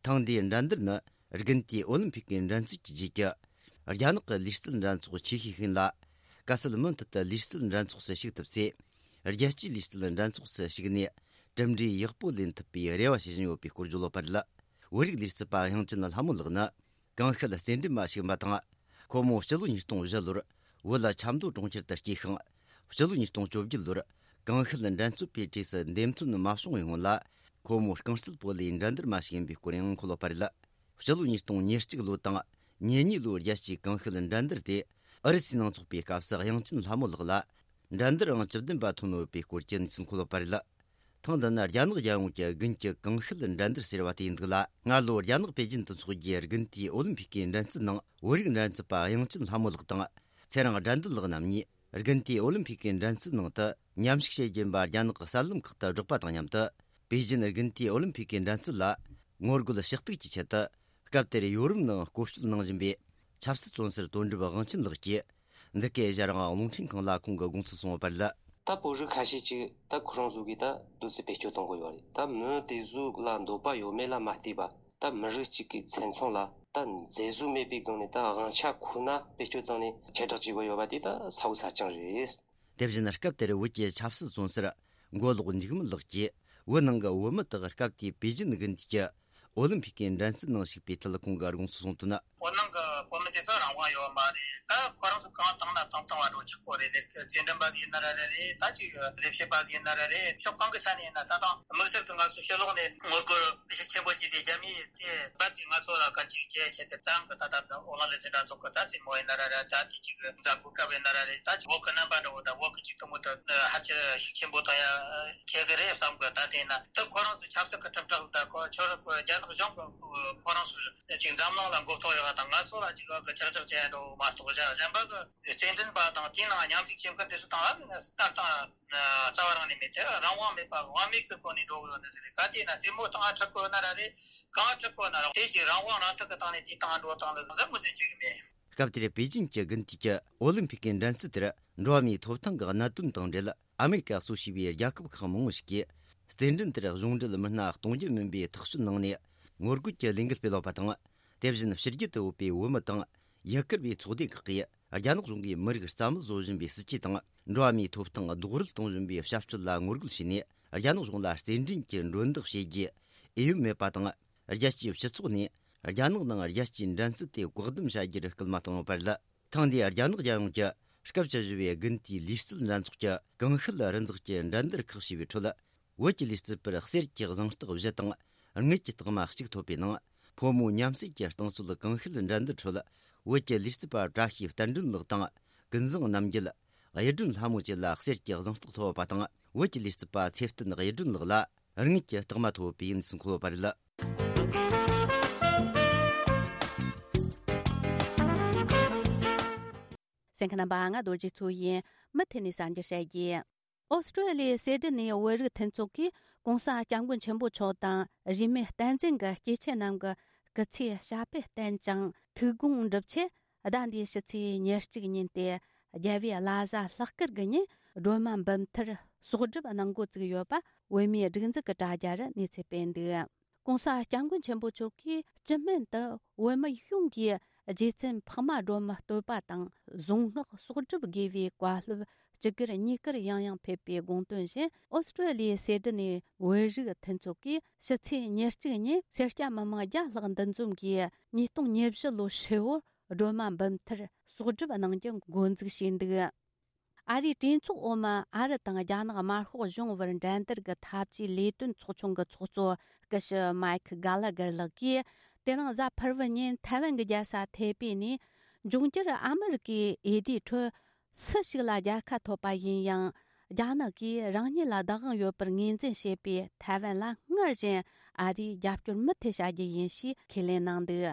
ཐེངས་འདིའི་འགྲན་བསྡུར་ནི་དགུན་དུས་ཨོ་ལིམ་ཕིག་གི་འགྲན་རྩོད་ཀྱི་རྗེས་ཀྱི་རྒྱ་ནག་གི་ལུས་རྩལ་འགྲན་ཚོགས་ཆེ་ཤོས་ཤིག་ཡིན་ལ། གལ་སྲིད་མུ་མཐུད་དུ་ལུས་རྩལ་འགྲན་ཚོགས་སུ་ཞུགས་ཐུབ་ཚེ། རྒྱལ་སྤྱིའི་ལུས་རྩལ་འགྲན་ཚོགས་སུ་ཞུགས་ནས་གྲུབ་འབྲས་ཡག་པོ་ལེན་ཐུབ་པའི་རེ་བ་བྱེད་བཞིན་ཡོད་པའི་སྐོར་བརྗོད་ཡོད་པ་རེད། བོད་རིགས་ལུས་རྩལ་པ་དབྱངས་ཅན་ལྷ་མོ་ལགས་ནི་ཀུང་ཤིན་རྩེད་འགྲན་པ་ཞིག་ཡིན་པ་དང་། ཁོ་མོ་སྤྱི་ལོ་ཉིས་སྟོང་བཞི་ལོར་བོད་ལ་ཆབ་མདོ་གྲོང་ཁྱེར་དུ་སྐྱེས་ཤིང་། སྤྱི་ལོ་ཉིས་སྟོང་བཅོ་བརྒྱད་ལོར་ཀུང་ཤིན་འགྲན་རྩོད་པའི་གྲས་སུ་འདེམས་ཐོན་མ་བྱུང་བའི་སྔོན་ལ། ཁོ་མོ་རྐང་རྩེད་སྤོ་ལོའི་འགྲན་བསྡུར་མ་ཞིག་ཡིན་པའི་སྐོར་ཡང་འཁོད་ཡོད་པ་རེད། སྤྱི་ལོ་ཉིས་སྟོང་ཉེར་གཅིག་ལོ་དང་ཉེར་གཉིས་ལོའི་རྒྱལ་སྤྱིའི་ཀུང་ཤིན་འགྲན་བསྡུར་དེ་ཨུ་རུ་སུའི་ནང་འཚོགས་པའི་སྐབས་སུ་དབྱངས་ཅན་ལྷ་མོ་ལགས་ལ་འགྲན་བསྡུར་ཨང་བཅུ་བདུན་པ་ཐོན་ཡོད་པའི་སྐོར་གྱི་གནས་ཚུལ་འཁོད་ཡོད་པ་རེད། ཐེངས་འདི་ནི་རྒྱ་ནག་རྒྱལ་ཡོངས་ཀྱི་དགུན་གྱི་ཀུང་ཤིན་འགྲན་བསྡུར་ཟེར་བ་དེ་ཡིན་འདུག་ལ། སྔ་ལོ་རྒྱ་ནག་པེ་ཅིན་དུ་འཚོགས་རྒྱུའི་དགུན་དུས་ཨོ་ལིམ་ཕིག་གི་འགྲན་རྩོད་ནང་བོད་རིགས་འགྲན་རྩོད་པ་དབྱངས་ཅན་ལྷ་མོ་ལགས་དང་། ཚེ་རིང་དགྲ་འདུལ་ལགས་རྣམ་གཉིས་དགུན་དུས་ཨོ་ལིམ་ཕིག་གི་འགྲན་རྩོད་ནང་དུ་མཉམ་ཞུགས་བྱེད་རྒྱུ་ཡིན་པ་རྒྱ་ནག་གི་གསར་ལམ་ཁག་ཏུ་བསྒྲགས་པ་དང་མཉམ་དུ། པེ་ཅིན་དགུན་དུས་ཨོ་ལིམ་ཕིག་གི་འགྲན་རྩོད་ལ་ངོ་རྒོལ་ཞུ་གཏུག་གི་ཆེད་དུ། སྐབས་དེར་ཡོ་རོབ་ནང་སྐོར་སྐྱོད་གནང་བཞིན་པའི་ཆབ་སྲིད་བཙོན་ཟུར་དོན་གྲུབ་དབང་ཆེན་ལགས་ཀྱིས། འདི་གའི་ཞལ་རང་རླུང་འཕྲིན་ཁང་ལ་ཁོང་གི་དགོངས་ཚུལ་གསུངས་ཡོད་པ་རེད། ད་བོད་རིགས་ཁ་ཤས་ཅིག་ད་ཁོ་རང་ཚོ་གིས་ད་འདུག་སེ་བེད་སྤྱོད་གཏོང་གི་ཡོད་རེད། ད་མི་དེ་ཚོ་ལ་འདོད་པ་ཡོད་མེད་ལ་མ་ལྟོས་པ། ད་མི་རིགས་གཅིག་གི་མཚན་མཚོན་ལ་ད་མཛེས་བཟོ་མེད་པའི་སྒང་ནས་ད་དབང་ཆ་ཁོ་ན་བེད་སྤྱོད་བཏང་ནས་ཁྱབ་བསྒྲགས་བྱེད་དགོས་ཡོད་པ་དེ་ད་ཚ་བོ་ཚ་རྐྱང་རེད། དེ་བཞིན་སྐབས་དེར་བོད་ཀྱི་ཆབ་སྲིད་བཙོན་ཟུར་མགོ་ལོག་འཇིགས་མེད་ལགས་ཀྱིས། བོད་ནང་གི་བོད་མི་དག་སྐབས་དེའི་པེ་ཅིན་དགུན་དུས་ཀྱི་ཨོ་ལིམ་ཕིག་གི་འགྲན་རྩོད་ནང་ཞུགས་པའི་ཐད་ཁོང་གི་དགོངས་ཚུལ་གསུངས་དོན། བོད་ནང་གི་བོད་མི་དེ་ཚོ་རང་དབང་ཡོད་མ་རེད། ད་ཁོ་རང་ཚོ་གང་བཏང་ན་བཏང་བཏང་བ་འགྲོ་ཆོག་གོ་རེད། ལས་རྩེད་འགྲན་པ་ཟིག་ཡིན་ན་ར་རེད། ད་ཅིག་ལས་བྱེད་པ་ཟིག་ཡིན་ན་ར་རེད། ཕྱོགས་གང་གི་ཆ་ནས་ཡིན་ན། ད་དང་དམིགས་བསལ་གྱི་ང་ཚོ་ཕྱི་ལོགས་ནས་ངོ་རྒོལ་ཤུགས་ཆེན་པོ་བྱས་ཏེ་རྒྱ་མིའི་དེ་རྦད་དེ་ང་ཚོ་ལ་ག་ཅིག་བྱས་བྱས་ཏེ་བཙན་གི་ད་ད་ཨོ་ལ་ལེ་ཚན་འདྲ་ཚོགས་གི་ད་རྩེད་མོ་ཡིན་ན་ར་རེད། ད་དེ་ཅིག་འཛམ་བུ་སྐབས་ཡིན་ན་ར་རེད། ད་ཅིག་བོད་གི་རྣམ་པ་འདྲ་བོ་ད་བོད་གི་ཅིག་དུ་མོ་ད་ཧ་ཅང་ཤུགས་ཆེན་པོ་ད་ཡ་ཁྱེད་གི་རེད་བསམ་གི། ད་དེ་ན་ད་ཁོ་རང་ཚོ་ཆབ་སྲིད་གི་ཁྲིམས་ཁྲག་ད་ཁོ་ཁྱོད་རང་ཁོ་རྒྱ་ནག་གཞུང་གི་ཁོ་རང་ཚོ་ཅིག་འཛམ་གླིང་ལ་མགོ་ཐོག་ཡོད་པ་དང་ང་ཚོ་ལ་ཅིག་གི་ཁྱབ་བསྒྲགས་བྱས་འགྲོ་མ་གཏོགས། གཞན་གཞན་པ་གི་རྩེད་འགྲན་པ་དང་དེའི་ནང་མཉམ་ཞུགས་བྱེད་མཁན་དེ་ཚོ་དང་ཨ་ནི་ལྟ་སྟངས་རྩ་བ་རང་ནས་མེད་དེ། རང་དབང་མེད་པ་དབང་མེད་ཀྱི་སྒོ་ནས་འགྲོ་གི་ཡོད་ནི་ཟེར་རེད། ག་དེ་ན་རྩེད་མོ་སྟངས་ཁྲག་གོ་ན་ར་རེད། གང་ཁྲག་གོ་ན་ར་དེ་ཅིག་རང་དབང་རང་ཐག་གི་སྟེང་ནས་དེའི་སྟེང་འགྲོ་སྟངས་ལ་བཟང་ཟབ་མོ་ཟིན་བྱེད་གི་མེད། སྐབས་དེར་པེ་ཅིན་གྱི་དགུན་དུས་ཀྱི་ཨོ་ལིམ་ཕིག་གི་འགྲན་རྩོད་དེར་འགྲོ་བ་མིའི་ཐོབ་ཐང་གི་གནད་དོན་དང་འབྲེལ། ཨ་མེ་རི་ཀ་སོ་ཞེས་པའི་རྒྱལ་ཁབ་ཁག་མང་བོ་ཞིག་གིས་རྩེད་འགྲན་དེར་གཞུང་འབྲེལ་མི་སྣ་གཏོང་རྒྱུ་མིན་པའི་ཐག་གཅོད་གནང་ནས་ངོ་རྒོལ་གྱི་ལས་འགུལ་སྤེལ་ཡོད་པ་དང་། དེ་བཞིན་ཕྱི་རྒྱལ་དུ་ཡོད་པའི་བོད་མི་དང་ཡུ་གུར་བའི་ཚོགས་སྡེ་ཁག་གིས་རྒྱ་ནག་གཞུང་གིས་མི་རིགས་རྩ་མེད་བཟོ་བཞིན་པའི་སྲིད་ཇུས་དང་། འགྲོ་བ་མིའི་ཐོབ་ཐང་རྡོག་རོལ་གཏོང་བཞིན་པའི་བྱ་སྤྱོད་ལ་ངོ་རྒོལ་བྱས་ནས། རྒྱ་ནག་གཞུང་ལ་རྩེད་འགྲན་གྱི་མགྲོན་བདག་བྱེད་རྒྱུའི་འོས་ཡོད་མེད་པ་དང་། རྒྱལ་སྤྱིའི་སྤྱི་ཚོགས་ནས་རྒྱ་ནག་ནང་རྒྱལ་སྤྱིའི་འགྲན་རྩོད་དེ་བཀག་སྡོམ་བྱ་རྒྱུར་སྐུལ་མ་བཏང་ཡོད་པ་རེད། ཐེངས་འདིའི་རྒྱ་ནག་རྒྱལ་ཡོངས་ཀྱི་སྐབས་བཅུ་བཞི་པའི་དགུན་དུས་ལུས་རྩལ་འགྲན་ཚོགས་ཀྱི་ཀུང་ཤིན་རི་འཛེག་གི་འགྲན་བསྡུར་ཁག་ཞེས་པའི་ཁྲོད། བོད་ཀྱི་ལུས་རྩལ་པར་གསེར་གྱི་གཟེངས་རྟགས་བཞི་དང་དངུལ་གྱི་རྟགས་མ་གཅིག་ཐོབ་པའི་ནང་། ཕོ་མོ་མཉམ་བསྲེས་ཀྱི་རྟིང་རྩོད་ཀུང་ཤིན་འགྲན་བསྡུར་ཁྲོད། བོད་ཀྱི་ལུས་རྩལ་པ་བཀྲ་ཤིས་བསྟན་སྒྲོན་ལགས་དང་། ཀུན་བཟང་རྣམ་རྒྱལ། གཡུ་སྒྲོན་ལྷ་མོ་བཅས་ལ་གསེར་གྱི་གཟེངས་རྟགས་ཐོབ་པ་དང་། བོད་ཀྱི་ལུས་རྩལ་པ་ཚེ་བརྟན་གཡུ་སྒྲོན་ལགས་ལ་དངུལ་གྱི་རྟགས་མ་ཐོབ་པའི་གནས་ཚུལ་འཁོད་ཡོད་པ་རེད། གསན་མཁན་རྣམ་པ། ང་རྡོ་རྗེ་མཚོ་ཡིན། མུ་མཐུད་ནས་གསར་འགྱུར་བཤད་རྒྱུ། ཨོ་སི་ཀྲོ་ལི་ཡའི་སེ་ཌི་ནེ་བོད་རིགས་མཐུན་ཚོགས་ཀྱིས་༸གོང་ས་༸སྐྱབས་མགོན་ཆེན་པོ་མཆོག་དང་རིས་མེད་བསྟན་འཛིན་གྱི་སྐྱེས་ཆེན་རྣམས་ཀྱི་སྐུ་ཚེའི་ཞབས་པད་བརྟན་ཅིང་ཐུགས་དགོངས་འགྲུབ་ཆེད། ཟླ་འདིའི་ཕྱི་ཚེས་ཉེར་གཅིག་ཉིན་ཏེ་རྒྱལ་བའི་བླ་གཟའ་ལྷག་དཀར་གྱི་ཉིན་སྒྲོལ་མ་འབུམ་ཐར་གསོག་སྒྲུབ་གནང་འགོ་བཙུགས་ཡོད་པ་བོད་མིའི་སྒྲིག་འཛུགས་ཀྱི་དྲ་རྒྱ་རུ་གནས་ཚུལ་སྤེལ་འདུག ༸གོང་ས་༸སྐྱབས་མགོན་ཆེན་པོ་མཆོག་གིས་སྤྱི་སྨན་དུ་བོད་མི་ཡོངས་ཀྱིས་རྗེ་བཙུན་འཕགས་མ་སྒྲོལ་མའི་བསྟོད་པ་དང་གཟུངས་སྔགས་གསོག་སྒྲུབ་དགོས་པའི་བཀའ་སློབ་སྤྱི་སྒེར་གཉིས་ཀར་ཡང་ཡང་ཕེབས་པའི་དགོངས་དོན་བཞིན། ཨོ་སི་ཀྲོ་ལི་ཡའི་སེ་ཌི་ནེ་བོད་རིགས་མཐུན་ཚོགས་ཀྱིས་ཕྱི་ཚེས་ཉེར་གཅིག་ཉིན་སེར་སྐྱ་མི་མང་བརྒྱ་ལྷག་འདུ་འཛོམས་ཀྱིས་ཉིས་སྟོང་ཉེར་བཞི་ལོའི་ཧྲིལ་བོར་སྒྲོལ་མ་འབུམ་ཐར་གསོག་སྒྲུབ་གནང་རྒྱུ་འགོ་འཛུགས་བྱས་འདུག་ཨ་རིའི་གྲོས་ཚོགས་འོག་མ་ཨ་རི་དང་རྒྱ་ནག་དམར་ཤོག་གཞུང་བར་འགྲན་བསྡུར་གྱི་འཐབ་ཇུས་ལས་དོན་ཚོགས་ཆུང་གི་ཚོགས་གཙོ་སྐུ་ཞབས་མཱིག་གྷ་ལ་གར་ལགས་ཀྱིས། དེ་རིང་གཟའ་ཕུར་བུ་ཉིན་ཐའེ་ཝན་གྱི་རྒྱལ་ས་ཐའེ་པེ་ནས་འབྱུང་འགྱུར་ཨ་མི་རི་ཀའི་འོས་བསྡུའི་ཁྲོད་སུ་ཞིག་ལ་རྒྱལ་ཁ་ཐོབ་པ་ཡིན་ཡང་། རྒྱ་ནག་གིས་རང་ཉིད་ལ་བདག་དབང་ཡོད་པར་ངོས་འཛིན་བྱེད་པའི་ཐའེ་ཝན་ལ་སྔར་བཞིན་ཨ་རིས་རྒྱབ་སྐྱོར་མུ་མཐུད་བྱ་རྒྱུ་ཡིན་ཞེས་ཁས་ལེན་གནང་འདུག་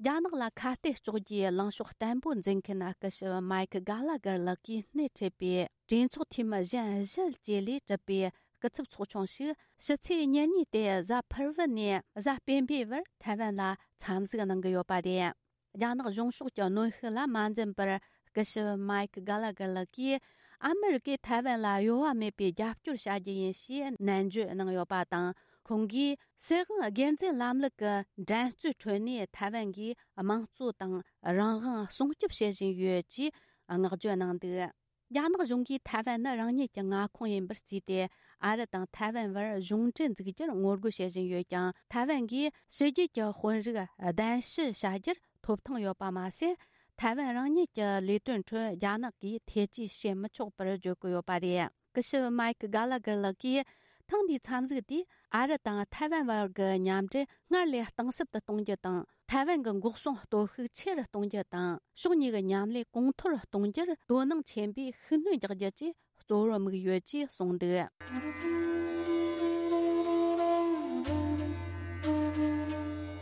རྒྱ་ནག་ལ་ཁ་གཏད་གཅོག་རྒྱུའི་ལངས་ཕྱོགས་བརྟན་པོ་འཛིན་མཁན་སྐུ་ཞབས་མཱིག་གྷ་ལ་གར་ལགས་ཀྱིས་སྣེ་ཁྲིད་པའི་གྲོས་ཚོགས་འཐུས་མི་གཞན་བཞི་བཅས་ལས་གྲུབ་པའི་སྐུ་ཚབ་ཚོགས་ཆུང་ཞིག་ཕྱི་ཚེས་ཉེར་གཉིས་ཏེ་གཟའ་ཕུར་བུ་ནས་གཟའ་སྤེན་པའི་བར་ཐའེ་ཝན་ལ་འཚམས་གཟིགས་གནང་གི་ཡོད་པ་རེད། རྒྱ་ནག་གཞུང་ཕྱོགས་ཀྱི་གནོན་ཤུགས་ལ་མ་འཛེམས་པར་སྐུ་ཞབས་མཱིག་གྷ་ལ་གར་ལགས་ཀྱིས་ཨ་མི་རི་ཀས་ཐའེ་ཝན་ལ་གཡོ་བ་མེད་པའི་རྒྱབ་སྐྱོར་བྱ་རྒྱུ་ཡིན་ཞེས་ནན་བརྗོད་གནང་ཡོད་པ་དང་། ཁོང་གིས་སྲིད་དབང་སྒེར་འཛིན་ལམ་ལུགས་ཀྱི་འགྲན་རྩོད་ཁྲོད་ནས་ཐའེ་ཝན་གྱིས་དམངས་གཙོ་དང་རང་དབང་སྲུང་སྐྱོབ་བྱེད་བཞིན་ཡོད་ཅེས་བསྔགས་བརྗོད་གནང་འདུག་རྒྱ་ནག་གཞུང་གིས་ཐའེ་ཝན་ནི་རང་ཉིད་ཀྱི་མངའ་ཁོངས་ཡིན་པར་བརྩིས་ཏེ། ཨ་རི་དང་ཐའེ་ཝན་བར་གཞུང་འབྲེལ་འཛུགས་རྒྱུར་ངོ་རྒོལ་བྱེད་བཞིན་ཡོད་ཀྱང་། ཐའེ་ཝན་གྱིས་ཕྱི་རྒྱལ་གྱི་དཔོན་རིགས་གདན་ཞུ་བྱ་རྒྱུར་ཐོབ་ཐང་ཡོད་པ་མ་ཟད། ཐའེ་ཝན་རང་ཉིད་ཀྱི་ལས་དོན་ཁྲོད་རྒྱ་ནག་གིས་ཐེ་ཇུས་བྱེད་མི་ཆོག་པར་བརྗོད་ཀྱི་ཡོད་པ་རེད། སྐུ་ཞབས་མའེ་ཀི་གྷ་ལ་གྷར་ལགས་ཀྱིས། ཐེངས་འདིའི་འཚམས་གཟིགས་དེས་ཨ་རི་དང་ཐའེ་ཝན་བར་གྱི་མཉམ་འབྲེལ་སྔར་ལས་གཏིང་ཟབ་ཏུ་གཏོང་རྒྱུ་དང་། ཐའེ་ཝན་གྱི་འགོག་སྲུང་སྟོབས་ཤུགས་ཆེ་རུ་གཏོང་རྒྱུ་དང་། ཕྱོགས་གཉིས་ཀྱི་མཉམ་ལས་གོང་མཐོར་གཏོང་རྒྱུར་དོ་སྣང་ཆེན་པོས་ཤུགས་སྣོན་རྒྱག་རྒྱུ་བཅས་གཙོ་བོར་དམིགས་ཡོད་ཅེས་གསུངས་འདུག་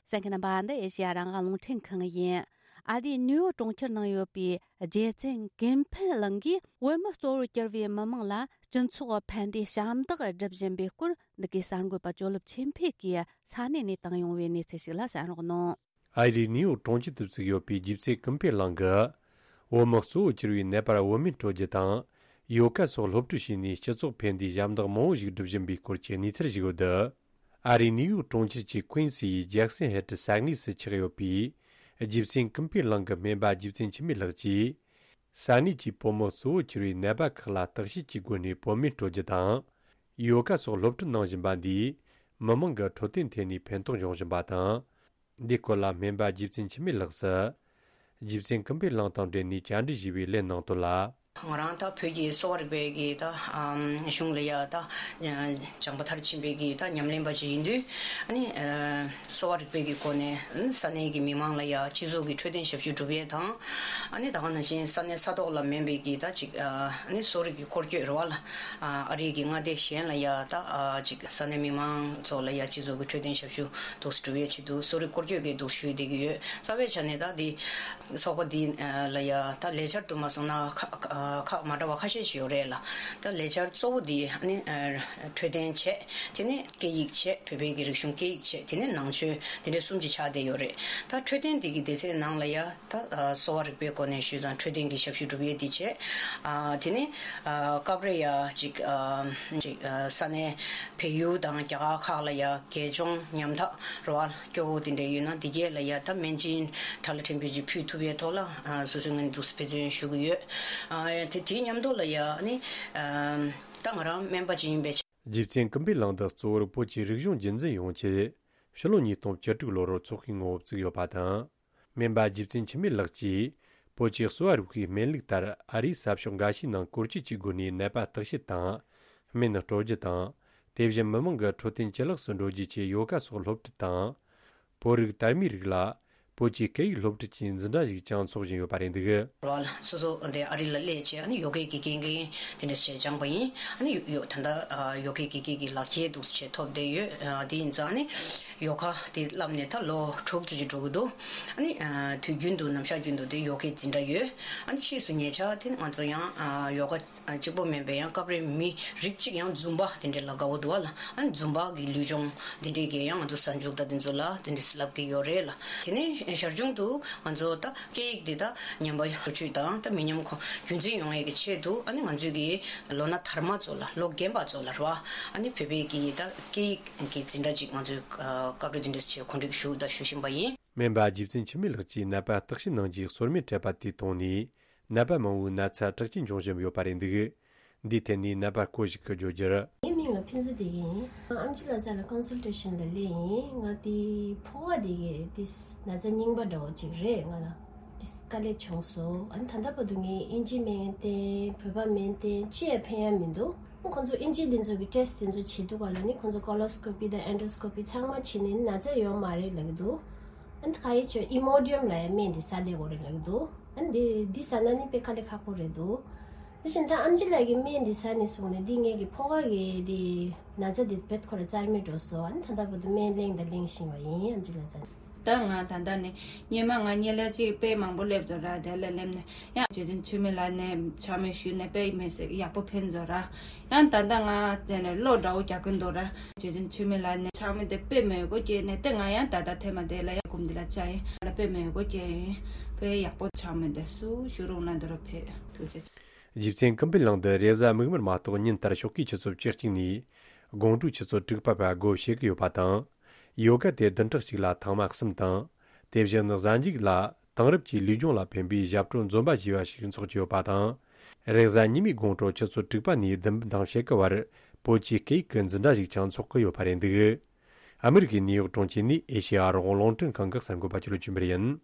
གསན་མཁན་རྣམ་པ། འདི་ཨེ་ཤེ་ཡ་རང་དབང་རླུང་འཕྲིན་ཁང་ཡིན། ཨ་རིའི་ནིའུ་ཡོག་གྲོང་ཁྱེར་ནང་ཡོད་པའི་རྗེ་བཙུན་ཀུན་ཕན་གླིང་གིས་བོད་མི་གཙོ་བོར་གྱུར་པའི་མི་མང་ལ་སྤྱི་ཚོགས་ཕན་བདེའི་ཞབས་འདེགས་སྒྲུབ་བཞིན་པའི་སྐོར། འདི་གའི་གསར་འགོད་པ་ཅོ་ལིབ་ཆོས་འཕེལ་གྱིས་ས་གནས་ནས་བཏང་ཡོང་བའི་གནས་ཚུལ་ཞིག་ལ་གསན་རོགས་གནང་། ཨ་རིའི་ནིའུ་ཡོག་གྲོང་ཁྱེར་དུ་བཙུགས་ཡོད་པའི་རྗེ་བཙུན་ཀུན་ཕན་གླིང་གིས། བོད་མི་གཙོ་བོར་གྱུར་པའི་ནད་པར་བོད་སྨན་སྤྲོད་རྒྱུ་དང་། ཡོ་ག་སོགས་སློབ་ཁྲིད་བྱས་ནས་སྤྱི་ཚོགས་ཕན་བདེའི་ཞབས་འདེགས་མང་བོ་ཞིག་སྒྲུབ་བཞིན་པའི་སྐོར་གྱི་གནས་ཚུལ་ཞིག་ཡོད་འདུག་ཨ་རིའི་ནིའུ་ཡོག་གྲོང་ཁྱེར་གྱི་ཀུན་སིའི་ཇེག་སན་ཧེ་ཏི་ས་གནས་སུ་ཆགས་ཡོད་པའི་རྗེ་བཙུན་ཀུན་ཕན་གླིང་གི་སྨན་པ་རྗེ་བཙུན་འཆི་མེད་ལགས་ཀྱིས། ས་གནས་ཀྱི་བོད་མི་གཙོ་བོར་གྱུར་པའི་ནད་པ་ཁག་ལ་བརྟག་དཔྱད་ཀྱི་སྒོ་ནས་བོད་སྨན་སྤྲོད་རྒྱུ་དང་། ཡོ་ག་སོགས་སློབ་ཁྲིད་གནང་བཞིན་པ་འདིས། མི་མང་གི་འཕྲོད་བསྟེན་ཐད་ནས་ཕན་ཐོགས་འབྱུང་བཞིན་པ་དང་། འདིའི་སྐོར་ལ་སྨན་པ་རྗེ་བཙུན་འཆི་མེད་ལགས་སུ། རྗེ་བཙུན་ཀུན་ཕན་གླིང་དང་འབྲེལ་ནས་བཅར་འདྲི་ཞུས་པའི་ལན་གནང་དོན་ལ། ང་རང་ད་བོད་ཀྱི་གསོ་བ་རིག་པའི་གི་ད་ཨམ་གཞུང་ལ་ཡ་ད་སྦྱངས་པ་མཐར་ཕྱིན་པའི་གི་ད་ཉམས་ལེན་པ་ཞིག་ཡིན་དུས། ཨ་ནི་ཨ་གསོ་བ་རིག་པའི་གི་སྒོ་ནས་ཨ་ནི་ས་གནས་ཀྱི་མི་མང་ལ་ཡ་སྤྱི་ཚོགས་ཀྱི་འཕྲོད་བསྟེན་ཞབས་ཞུ་སྒྲུབ་ཡས་དང་། ཨ་ནི་ད་ག་ནང་བཞིན་ས་གནས་ས་ཐོག་ལ་མིན་པའི་གི་ད་ཅིག་ཨ་ནི་གསོ་རིག་གི་སྐོར་སྐྱོད་རེད་བ་ལ། ཨ་རིའི་གི་མངའ་སྡེ་གཞན་ལ་ཡ་ད་ཨ་ཅིག་ས་གནས་མི་མང་ཚོ་ལ་ཡ་སྤྱི་ཚོགས་ཀྱི་འཕྲོད་བསྟེན་ཞབས་ཞུ་འདུག་སེ་སྒྲུབ་ཡས་ཆེད་དུ་གསོ་རིག་སྐོར་སྐྱོད་ཀྱི་འདུག་སེ་ཞུས་བསྡད་ཀྱི་ཡོད། རྩ་བའི་ཆ་ནས་ད་འདི་ཚོགས་པ་འདི་ལ་ཡ་ད་ལས་འཆར་དུ་མ་སོང་ན་ཁག་ཁག་ཁག་མ་འདྲ་བ་ཁ་ཤས་ཤིག་ཡོད་རེད་ལ། ད་ལས་འཆར་གཙོ་བོ་འདི་ཨ་ནི་ཨ་འཕྲོད་བསྟེན་བྱས། དེ་ནས་སྐད་ཡིག་བྱས། བོད་པའི་གི་རིག་གཞུང་སྐད་ཡིག་བྱས། དེ་ནས་ནང་ཆོས། དེ་འདྲའི་གསུམ་གྱི་ཆ་དེ་ཡོད་རེད། ད་འཕྲོད་བསྟེན་འདི་གི་སྡེ་ཚན་ནང་ལ་ཡ་ད་ཨ་གསོ་བ་རིག་པའི་སྒོ་ནས་ཞུས་ཙང་འཕྲོད་བསྟེན་གྱི་ཞབས་ཞུ་སྒྲུབ་ཡས་འདི་བྱས། ཨ་དེ་ནས་ཨ་སྐབས་རེ་ཡ་ཅིག་ཨ་ཅིག་ཨ་ས་གནས་བལ་ཡུལ་དང་རྒྱ་གར་ཁག་ལ་ཡ་དགེ་སྦྱོང་ཉམ་ཐག་རེད་བ། སྐྱོ་བོ་དེ་འདྲ་ཡོད་ན་དེ་གས་ལ་ཡ་ད་སྨན་སྦྱིན་གྲྭ་ལ་ཕྲན་བུ་ཅིག་ཕུལ་ཐུབ་ཡས་ཐོག་ལ་ཨ་སོ་སོའི་ངོས་ནས་འདུག་སེ་འབད་བརྩོན་ཞུ་གི་ཡོད། ཨ་དེ་དེའི་མཉམ་དུ་ལ་ཡ་ཨ་ནི་ཨ་ད་ང་རང་སྨན་པ་ཅིག་ཡིན་པའི་ཆ། རྗེ་བཙུན་ཀུན་ཕན་གླིང་འདི་གཙོ་བོར་བོད་ཀྱི་རིག་གཞུང་རྒྱུན་འཛིན་ཡོང་ཆེད་ཕྱི་ལོ་ཉིས་སྟོང་བཅུ་དྲུག་ལོར་ཚོགས་ཤིག་ངོ་བོ་བཙུགས་ཡོད་པ་དང་། སྨན་པ་རྗེ་བཙུན་འཆི་མེད་ལགས་ཀྱིས་བོད་ཀྱི་གསོ་བ་རིག་པའི་སྨན་ལུགས་ལྟར་ཨ་རིའི་ས་ཕྱོགས་འགའ་ཤས་ནང་སྐོར་སྐྱོད་ཀྱི་སྒོ་ནས་ནད་པ་བརྟག་དཔྱད་དང་། སྨན་སྤྲོད་རྒྱུ་དང་། དེ་བཞིན་མི་མང་གི་འཕྲོད་བསྟེན་ཇེ་ལེགས་སུ་འགྲོ་རྒྱུའི་ཆེད་ཡོ་ག་སོགས་སློབ་ཁྲིད་དང་། བོད་རིགས་དར་མའི་རིགས་ལ་བོད་ཀྱི་སྐད་ཡིག་སློབ་ཁྲིད་ཀྱི་འཛིན་གྲྭ་ཞིག་ཀྱང་འཚོགས་བཞིན་ཡོད་པ་རེད་འདུག་རོལ་སོ་སོ་འདི་ཨ་རི་ལ་སླེབས་བྱས་ཨ་ནི་ཡོ་གའི་དགེ་རྒན་དེ་འདྲ་བྱས་སྦྱངས་པ་ཡིན། ཨ་ནི་ཡོ་ད་ལྟ་ཡོ་གའི་དགེ་རྒན་གྱི་ལག་ཁྱེར་འདུག་སེ་ཐོབ་བསྡད་ཡོད། དེ་ཡིན་ཙང་ཨ་ནི་ཡོ་ག་དེ་བསླབས་ནས་ད་ལོ་དྲུག་ཙམ་ཅིག་འགྲོ་གི་འདུག་ཨ་ནི་དུས་རྒྱུན་དུ་ནམ་ཞག་རྒྱུན་དུ་དེ་ཡོ་གའི་འཛིན་གྲྭ་ཡོད། ཨ་ནི་ཕྱིས་སུ་ཉེ་ཆར་དེ་ང་ཚོ་ཡང་ཡོ་ག་གཅིག་པོ་མིན་པའི་ཡང་སྐབས་རེ་མི་རིགས་གཅིག་ཡང་ཛུམ་བ་དེ་འདྲའི་ལ་དགའ་བོ་འདུག་བ་ལ། ཨ་ནི་ཛུམ་བ་གི་ལུས་སྦྱོང་དེ་འདྲའི་གི་ཡང་ང་ཚོ་གཟའ་མཇུག་ད་དེ་ཚོ་ལ་དེ་འདྲའི་བསླབ་ཀྱི་ཡོད་རེད་ལ། དེ་ནས་ཞར་བྱུང་དུ་ང་ཚོ་ད་སྐད་ཡིག་འདི་ད་ཉམས་པ་ཡོང་ཆེད་དང་ད་མི་ཉམས་གོང་རྒྱུན་འཛིན་ཡོང་ཡས་ཀྱི་ཆེད་དུ་ཨ་ནི་ང་ཚོའི་གི་ལོ་ན་དར་མ་ཚོ་ལ་ལོ་རྒན་པ་ཚོ་ལ་རེད་བ། ཨ་ནི་བོད་པའི་གི་ད་སྐད་ཡིག་གི་འཛིན་གྲྭ་ཅིག་ང་ཚོས་སྐབས་རེ་དེ་འདྲ་བྱས་གོ་སྒྲིག་ཞུ་དང་ཞུ་བཞིན་པ་ཡིན། སྨན་པ་རྗེ་བཙུན་འཆི་མེད་ལགས་ཀྱིས་ནད་པ་བརྟག་དཔྱད་གནང་རྒྱུའི་སོར་མོས་སྤྲད་པ་དེའི་ཐོག་ནས། ནད་པ་མང་བོའི་ན་ཚ་དྲག་ཅན་འབྱུང་བཞིན་ཡོད་པ་རེད་འདུག་འདིའི་ཐད་ནས་ནད་པ་སྐོར་ཞིག་གིས་བརྗོད་རྒྱུར། ངའི་མིང་ལ་ཕུན་ཚོགས་བདེ་སྐྱིད་ཡིན། ཨམ་ཆི་ལགས་རྩ་ལ་ཀོན་སལ་ཊེ་ཤན་ལ་སླེབས་ཡིན། ང་དེ་ཕོ་བ་དེ་གི་དེ་ན་ཚ་རྙིང་པ་འདྲ་བོ་ཅིག་རེད། ང་ལ་དེ་དཀའ་ལས་བྱུང་སོང་། ཨ་ནི་ད་ལྟ་བར་དུ་ངས་ཨིན་ཇི་སྨན་བསྟེན། བོད་པ་སྨན་བསྟེན། ཅི་ཡང་ཕན་ཡ་མི་འདུག་ཁོང་ཚོ་ཨིན་ཇི་དེ་ཚོ་གི་ཊེ་སི་དེ་ཚོ་བྱེད་དུས་ག་ལ་ནི་ཁོང་ཚོ་ཀོ་ལོ་སི་ཀོ་པི་དང་ཨེན་ཌོ་སི་ཀོ་པི་ཚང་མ་བྱེད་ནས་ན་ཚ་ཡོད་མ་རེད་ལབ་ཀྱི་འདུག་ཨ་ནི་ག་ཡེ་བྱས་ཨི་མོ་ཌི་ཡམ་ལབ་ཡ་སྨན་དེ་ཟ་བསྡད་དགོས་རེད་ལབ་ཀྱི་འདུག་ཨ་ནི་དེ་དེ་ཟ་ན་ནི་དཔེ་དཀའ་ལས་ཁག་པོ་རེད་འདུག་དེ་བཞིན་ད་ཨམ་ཆི་ལགས་ཀྱིས་སྨན་འདི་ཟ་ནས་བཟུང་ནས་འདི་ངེད་ཀྱི་ཕོ་ཁ་གི་འདི་ན་ཚ་འདི་རྦད་ཁོ་ར་རྩ་མེད་འགྲོ་སོང་། ཨ་ནི་ད་ལྟ་བར་དུ་སྨན་ལེན་དང་ལེན་བཞིན་པ་ཡིན། ཨམ་ཆི་ལགས་ཟ་ནས། ད་ང་ད་ལྟ་ནས་སྔོན་མ་ང་སྔོན་ལ་ཅིག་དཔེ་མང་པོ་སླེབས་ཚར་ར། དེ་ལ་སླེབས་ནས་ཡང་རྗེ་བཙུན་འཆི་མེད་ལགས་ནས་ཕྱག་དམ་ཞུས་ནས་དཔེ་མི་སྲིད་ཡག་པོ་ཕན་ཚར་ར། ཡང་ད་ལྟ་ང་དེ་ནས་བློ་འདྲ་བོ་རྒྱག་གིན་འདུག་ར། རྗེ་བཙུན་འཆི་མེད་ལགས་ནས་ཕྱག་དམ་དེ་དཔེ་མོས་གུས་བསྐྱེད་ནས་དེ་ང་ཡང་ད་ལྟ་ཐེངས་མ་དེ་ལ་ཡང་སྒོམ་འདི་ལ་བཅར་ཡིན་ལ། དཔེ་མོས་གུས་བསྐྱེད་ཡིན། དཔེ་ཡག་པོ། ཕྱག་དམ་དེ་སུ་ཞུ་རུང་ན་འདི་རུ་ཕེབས། ཐུགས་རྗེ་ཆེ། རྗེ་བཙུན་ཀུན་ཕན་གླིང་འདི་རེས་གཟའ་མིག་དམར་མ་གཏོགས་ཉིན་ལྟར་ཞོགས་ཀའི་ཆུ་ཚོད་བཅུ་གཅིག་ནས་དགོང་དྲོའི་ཆུ་ཚོད་དྲུག་པ་བར་སྒོ་ཕྱེ་གི་ཡོད་པ་དང་། ཡོ་ག་དེ་བདུན་ཕྲག་གཅིག་ལ་ཐེངས་མ་གསུམ་དང་། དེ་བཞིན་གཟའ་མཇུག་ལ་དེང་རབས་ཀྱི་ལུས་སྦྱོང་ལ་ཕན་པའི་ཞབས་བྲོ་འཛོམས་པ་ཞེས་པ་ཞིག་འཚོགས་ཀྱི་ཡོད་པ་དང་ རེས་གཟའ་ཉི་མའི་དགོང་དྲོ་ཆུ་ཚོད་དྲུག་པ་ནས་བདུན་པ་དང་ཕྱེད་ཀ་བར་བོད་ཀྱི་སྐད་ཡིག་གི་འཛིན་གྲྭ་ཞིག་ཀྱང་འཚོགས་ཀྱི་ཡོད་པ་རེད་འདུག་ཨ་མི་རི་ཀའི་ནིའུ་ཡོག་གྲོང་ཁྱེར་ནས་ཨེ་ཤེ་ཡ་རང་དབང་རླུང་འཕྲིན་ཁང་གི་གསར་འགོད་པ་ཆོས་ལོ་ཆོས་འཕེལ་ཡིན།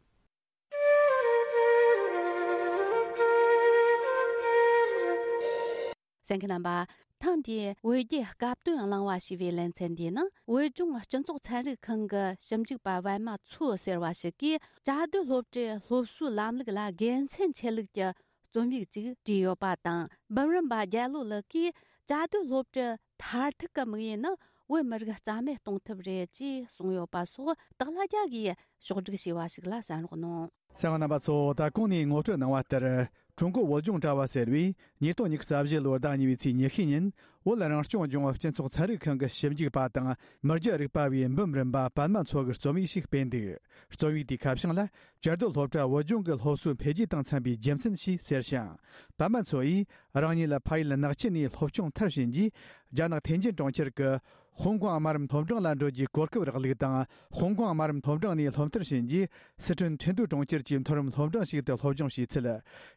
གསན་མཁན་རྣམ་པ། ཐེངས་འདིའི་བོད་རྒྱའི་སྐབས་དོན་གླེང་བ་ཞེས་པའི་ལེ་ཚན་འདིའི་ནང་བོད་ལྗོངས་སྤྱི་ཚོགས་ཚན་རིག་ཁང་གི་ཞིབ་འཇུག་པ་པད་མ་མཚོ་ཟེར་བ་ཞིག་གིས་བཅའ་སྡོད་སློབ་གྲྭའི་སློབ་གསོའི་ལམ་ལུགས་ལ་དགེ་མཚན་ཆེ་ལུགས་ཀྱི་རྩོམ་ཡིག་ཅིག་བྲིས་ཡོད་པ་དང་། འབུམ་རམས་པ་རྒྱལ་ལོ་ལགས་ཀྱིས་བཅའ་སྡོད་སློབ་གྲྭའི་མཐར་ཐུག་གི་དམིགས་ཡུལ་ནི་བོད་མི་རིགས་རྩ་མེད་གཏོང་ཐབས་རེད་ཅེས་གསུངས་ཡོད་པ་སོགས་སྟག་ལྷ་རྒྱལ་གྱིས་ཕྱོགས་སྒྲིག་བྱས་པ་ཞིག་ལ་གསན་རོགས་གནང་། གསན་པ་རྣམ་པ་ཚོ། ད་གོང་ནས་ངོ་སྤྲོད་གནང་བ་ལྟར། ཀྲུང་གོ་བོད་ལྗོངས་དྲ་བ་ཟེར་བས་ཉིས་སྟོང་ཉི་ཤུ་རྩ་བཞི་ལོའི་ཟླ་གཉིས་པའི་ཚེས་ཉི་ཤུ་ཉིན་བོད་རང་སྐྱོང་ལྗོངས་སྤྱི་ཚོགས་ཚན་རིག་ཁང་གི་ཞིབ་འཇུག་པ་དང་མི་རྒྱ་རིག་པ་བའི་འབུམ་རམས་པ་པད་མ་མཚོ་གིས་རྩོམ་ཡིག་ཞིག་སྤེལ་འདུག་རྩོམ་ཡིག་དེའི་ཁ་བྱང་ལ། བཅའ་སྡོད་སློབ་གྲྭ་བོད་ལྗོངས་ཀྱི་སློབ་གསོའི་འཕེལ་རྒྱས་དང་འཚམ་པའི་རྒྱུ་མཚན་ཞེས་ཟེར་ཞིང་། པད་མ་མཚོ་ཡིས་རང་ཉིད་ལ་ཕ་ཡུལ་ནག་ཆུ་ནས་སློབ་སྦྱོང་མཐར་ཕྱིན་རྗེས། རྒྱ་ནག་ཐེན་ཅིན་གྲོང་ཁྱེར་གྱི་ཧོང་ཀོང་དམའ་རིམ་སློབ་འབྲིང་ལ་འགྲོ་རྒྱུའི་གོ་སྐབས་རག་ལུགས་དང་། ཧོང་ཀོང་དམའ་རིམ་སློབ་འབྲིང་ནས་སློབ་མཐར་ཕྱིན་རྗེས། སི་ཁྲོན་ཁྲིན་ཏུའུ་གྲོང་ཁྱེར་གྱི་མཐོ་རིམ་སློབ་འབྲིང་ཞིག་ཏུ་སློབ་སྦྱོང་བྱས་ཚུལ།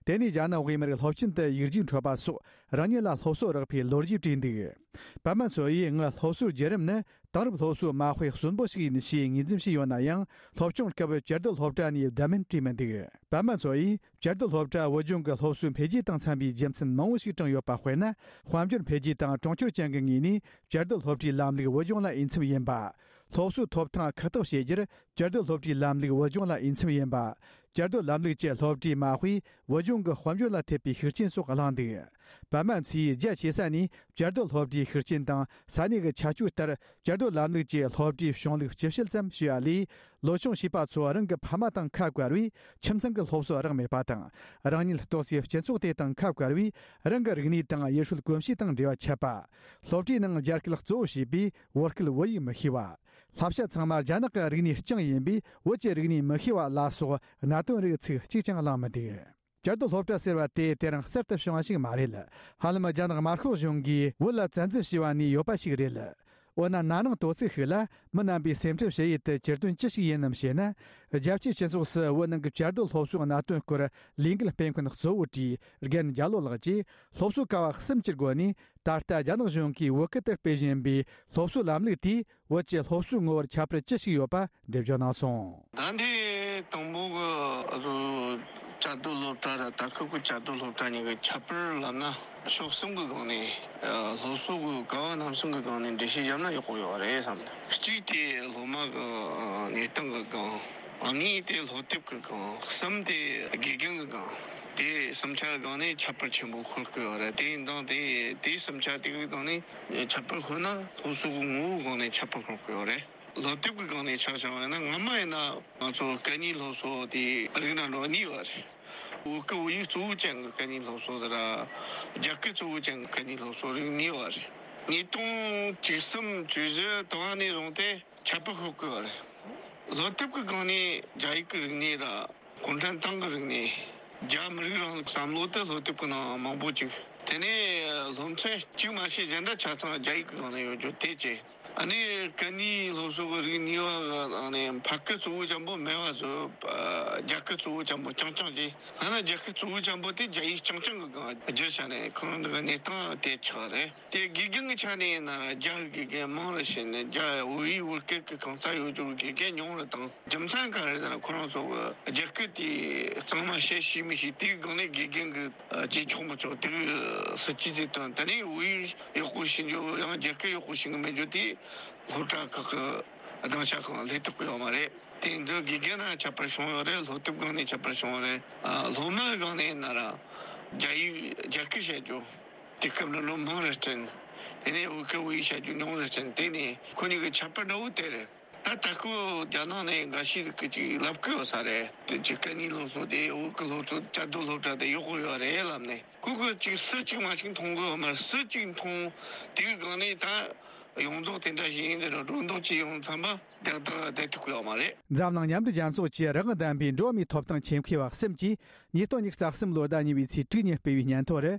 དེ་ནས་རྒྱ་ནག་དབུས་མར་སློབ་ཆེན་དུ་ཡིག་རྒྱུགས་འཕྲོད་པ་སོགས་རང་ཉིད་ལ་སློབ་གསོ་རག་པའི་ལོ་རྒྱུས་བྲིས་འདུག་པད་མ་མཚོ་ཡིས་ངའི་སློབ་གསོའི་བརྒྱུད་རིམ་ནི་དེང་རབས་སློབ་གསོའི་མ་དཔེ་གསོན་པོ་ཞིག་ཡིན་ཞེས་ངོས་འཛིན་བྱས་ཡོད་ན་ཡང་། སློབ་སྦྱོང་སྐབས་བཅའ་སྡོད་སློབ་གྲྭ་ནས་བསྡད་མིན་བྲིས་མི་འདུག་པད་མ་མཚོ་ཡིས་བཅའ་སྡོད་སློབ་གྲྭ་བོད་ལྗོངས་ཀྱི་སློབ་གསོའི་འཕེལ་རྒྱས་དང་འཚམ་པའི་རྒྱུ་མཚན་མང་བོ་ཞིག་བགྲངས་ཡོད་པ་དཔེར་ན། དཔལ་འབྱོར་འཕེལ་རྒྱས་དང་གྲོང་ཁྱེར་ཅན་གྱི་ངོས་ནས་བཅའ་སྡོད་སློབ་གྲྭའི་ལམ་ལུགས་བོད་ལྗོངས་ལ་འོས་འཚམ་ཡིན་པ། སློབ་གསོའི་ཐོབ་ཐང་ཁག་ཐེག་བྱེད་རྒྱུར་བཅའ་སྡོད་སློབ་གྲྭའི་ལམ་ལུགས་བོད་ལྗོངས་ལ་འོས་འཚམ་ཡིན་པ། བཅའ་སྡོད་ལམ་ལུགས་ཀྱི་སློབ་གྲྭའི་མ་དཔེས་བོད་ལྗོངས་ཀྱི་དཔལ་འབྱོར་ལ་ཐེབས་པའི་ཤུགས་རྐྱེན་སོགས་གླེང་འདུག་པད་མ་མཚོས་རྒྱ་ཆེ་ས་ནས་བཅའ་སྡོད་སློབ་གྲྭའི་ཤུགས་རྐྱེན་དང་ས་གནས་ཀྱི་ཁྱད་ཆོས་ལྟར་བཅའ་སྡོད་ལམ་ལུགས་ཀྱི་སློབ་གྲྭའི་གཞུང་ལུགས་སྤྱི་བཤད་ཙམ་ཞུ་བ་ལས། ལོ་ཆུང་བྱིས་པ་ཚོ་རང་གི་ཕ་མ་དང་ཁ་བཀར་བས་ཁྱིམ་ཚང་གི་སློབ་གསོ་རག་མེད་པ་དང་། རང་ཉིད་གཏོགས་སའི་སྤྱི་ཚོགས་དེ་དང་ཁ་བཀར་བས་རང་གི་རིག་གནས་དང་ཡུལ་སྲོལ་གོམས་གཤིས་དང་འབྲེལ་བ་ཆད་པ། སློབ་གྲྭའི་ནང་རྒྱ་སྐད་གཙོ་བོ་བྱས་པས་བོད་སྐད་བོད་ཡིག་མི་ཤེས་པ། བསླབ་བྱ་ཚང་མ་རྒྱ་ནག་གི་རིག་གནས་རྐྱང་ཡིན་པས་བོད་ཀྱི་རིག་གནས་མི་ཤེས་པ་ལ་སོགས་གནད་དོན་རིགས་ཚིག་གཅིག་ཀྱང་གླེང་མི་འདུག་བཅའ་སྡོད་སློབ་གྲྭ་ཟེར་བ་དེ་དེ་རིང་གསར་དུ་བྱུང་བ་ཞིག་མ་རེད། ཧ་ལམ་རྒྱ་ནག་དམར་ཤོག་གཞུང་གིས་བོད་ལ་བཙན་འཛུལ་བྱས་པ་ནས་ཡོད་པ་ཞིག་རེད། འོ་ན་ན་ནིང་དོ་ཚིགས་ཤིག་ལ་མི་རྣམ་པའི་སེམས་ཁྲལ་བྱེད་ཡུལ་དུ་གྱུར་དོན་ཅི་ཞིག་ཡིན་ནམ་ཞེ་ན། རྒྱལ་སྤྱིའི་སྤྱི་ཚོགས་སུ་བོད་ནང་གི་བཅའ་སྡོད་སློབ་གསོའི་གནད་དོན་སྐོར་ལས་འགུལ་སྤེལ་མཁན་གཙོ་བོ་བཀྲིས་རྒན་རྒྱ་ལོ་ལགས་ཀྱིས་སློབ་གསོའི་ཀ་བ་གསུམ་གྱི་སྒོ་ནས་ད་ལྟ་རྒྱ་ནག་གཞུང་གིས་བོད་སྐད་དུ་སྤེལ་བཞིན་པའི་སློབ་གསོའི་ལམ་ལུགས་དེས་བོད་ཀྱི་སློབ་གསོའི་ངོ་བོར་ཁྱད་པར་ཅི་ཞིག་ཡོད་པ་འགྲེལ་བརྗོད་གནང་སོང་། ད་ལྟའི་དང་པོ་གི་བཅའ་སྡོད་སློབ་གྲྭ་ར་ད་སྐབས་ཀྱི་བཅའ་སྡོད་སློབ་གྲྭ་གཉིས་ཀྱི་ཁྱད་པར་ལབ་ན་ཕྱོགས་གསུམ་གྱི་སྒང་ནས་སློབ་གསོ་གི་ཀ་བ་རྣམ་གསུམ་གྱི་སྒང་ནས་འགྲེལ་བཤད་བརྒྱབ་ན་ཡག་པོ་ཡོད་རེད་བསམ། གཅིག་དེ་སློབ་མ་གི་གནས་སྟངས་ཀྱི་སྒང་། གཉིས་དེ་སློབ་དེབ་ཀྱི་སྒང་། གསུམ་དེ་དགེ་རྒན་གྱི་སྒང་། དེ་གསུམ་ཆ་གི་སྒང་ནས་ཁྱད་པར་ཆེན་པོ་ཤོར་གི་ཡོད་རེད། དེ་ཡིན་དང་དེ་དེ་གསུམ་ཆ་དེ་གི་སྒང་ནས་ཁྱད་པར་ཤོར་ན་སློབ་གསོ་གི་ངོ་བོའི་སྒང་ནས་ཁྱད་པར་ཤོར་གི་ཡོད་རེད། སློབ་དེབ་ཀྱི་སྒང་ནས་ཆ་བཞག་པ་ཡིན་ན་སྔ་མ་ཡིན་ན་ང་ཚོ་སྐད་གཉིས་སློབ་གསོ་དེ་རིགས་སྣ་འགྲོ་གཉིས་ཡོད་རེད། བོད་སྐད་བོད་ཡིག་གཙོ་བོ་ཅན་གྱི་སྐད་གཉིས་སློབ་གསོ་དེ་ར་རྒྱ་སྐད་གཙོ་བོ་ཅན་གྱི་སྐད་གཉིས་སློབ་གསོ་རིགས་གཉིས་ཡོད་རེད། ཉིས་སྟོང་བཅུ་གསུམ་བཅུ་བཞི་དུ་བ་ནས་བཟུང་སྟེ་ཁྱད་པར་ཤོར་གི་ཡོད་རེད། སློབ་དེབ་ཀྱི་སྒང་ནས་རྒྱ་ཡིག་གི་རིག་གནས་ར་གུང་ཁྲན་ཏང་གི་རིག་གནས། རྒྱ་མི་རིགས་རིང་ལུགས་བསམ་བློ་དེ་སློབ་དེབ་ཀྱི་ནང་མང་པོ་ཅིག་དེ་ནས་སློབ་ཚན་གཅིག་མ་ཤེས་གཞན་དག་ཆ་ཚང་རྒྱ་ཡིག་གི་སྒང་ནས་ཡོད་རྒྱུ་དེ་བྱས། ཨ་ནི་སྐད་གཉིས་སློབ་གསོ་གི་རིགས་གཉིས་པ་གི་ནང་ནས་ཕ་སྐད་གཙོ་བོ་ཅན་པོ་མེད་པ་བཟོ། རྒྱ་སྐད་གཙོ་བོ་ཅན་པོ་རྐྱང་རྐྱང་བྱས། ཨ་ན་རྒྱ་སྐད་གཙོ་བོ་ཅན་པོ་དེ་རྒྱ་ཡིག་རྐྱང་རྐྱང་གི་སྒང་བསྒྱུར་བྱས་ནས་ཁོ་རང་ཚོ་གི་གནས་སྟངས་དེ་ཆགས་རེད། དེ་དགེ་རྒན་གྱི་ཆ་ནས་ཡིན་ན་རྒྱ་གི་དགེ་རྒན་མང་རུ་ཕྱིན་ནས་རྒྱ་བོད་ཡིག་བོད་སྐད་ཀྱི་གང་ཙམ་ཡོད་རྒྱུ་གི་དགེ་རྒན་ཉུང་རུ་བཏང་། རྒྱུ་མཚན་ག་རེ་ཟེར་ན་ཁོ་རང་ཚོ་གི་རྒྱ་སྐད་དེ་གཙང་མ་བཤད་ཤེས་མི་ཤེས་དེའི་སྒང་ནས་དགེ་རྒན་གྱི་བྱེད་ཆོག་མི་ཆོག་དེ་གི་སྲིད་ཇུས་དེ་བཏོན། དེ་ནས་བོད་ཡིག་ཡག་པོ་ཤེས་རྒྱུ་ཡང་རྒྱ་སྐད་ཡག་པོ་ཤེས་གི་མེད་རྒྱུ་དེ་སློབ་གྲྭ་ཁག་གི་སྡིངས་ཆ་ཁག་སླེབས་ཐུབ་ཀྱི་ཡོད་མ་རེད། དེ་འདི་དགེ་རྒན་ནས་ཁྱད་པར་བྱུང་ཡོད་རེད། སློབ་དེབ་སྒང་ནས་ཁྱད་པར་བྱུང་ཡོད་རེད། ཨ་སློབ་མའི་སྒང་ནས་ཡིན་ན་ར་རྒྱ་ཡིག་རྒྱ་སྐད་བཤད་རྒྱུ། དེ་སྐབས་ནང་ལོ་མང་རེ་བསྐྲུན། དེ་ནས་བོད་སྐད་བོད་ཡིག་བཤད་རྒྱུ་ཉུང་རེ་བསྐྲུན། དེ་ནས་ཁོ་གཉིས་ཀྱི་ཁྱད་པར་འདྲ་བོ་དེ་རེད། ད་ད་ཁོ་རྒྱ་ནག་ནས་འགའ་ཤས་ཀྱིས་ཅིག་ལབ་ཀྱི་ཡོད་ས་རེད། དེ་ཅིག་སྐད་གཉིས་སློབ་གསོ་དེ་བོད་ཀྱི་སློབ་གསོ་བཅའ་སྡོད་སློབ་གྲྭ་དེ་ཡག་པོ་ཡོད་རེད་ལབ་ནས་ཁོ་གིས་ཅིག་སུ་གཅིག་མ་གཅིག་མཐོང་གི་ཡོད་མ་རེད། སུ་གཅིག་མཐོང་དེའི་སྒང་ནས་ད་ཡོངས་རྫོགས་དེ་འདྲ་ཞིག་ཡིན་ཟེར་ནས་སྒྲོ་འདོགས་ཅིག་ཡོང་ཙམ་པ་དེ་དག་བསྡད་ཐུབ་ཀྱི་ཡོད་མ་རེད། འཛམ་གླིང་མཉམ་འབྲེལ་རྒྱལ་ཚོགས་ཀྱི་རང་དབང་ལྡན་པའི་འགྲོ་བ་མིའི་ཐོབ་ཐང་ཆེད་མཁས་པ་གསུམ་གྱིས་ཉིས་སྟོང་ཉི་ཤུ་རྩ་གསུམ་ལོའི་ཟླ་གཉིས་པའི་ཚེས་དྲུག་ཉིན་སྤེལ་བའི་སྙན་ཐོ་རུ།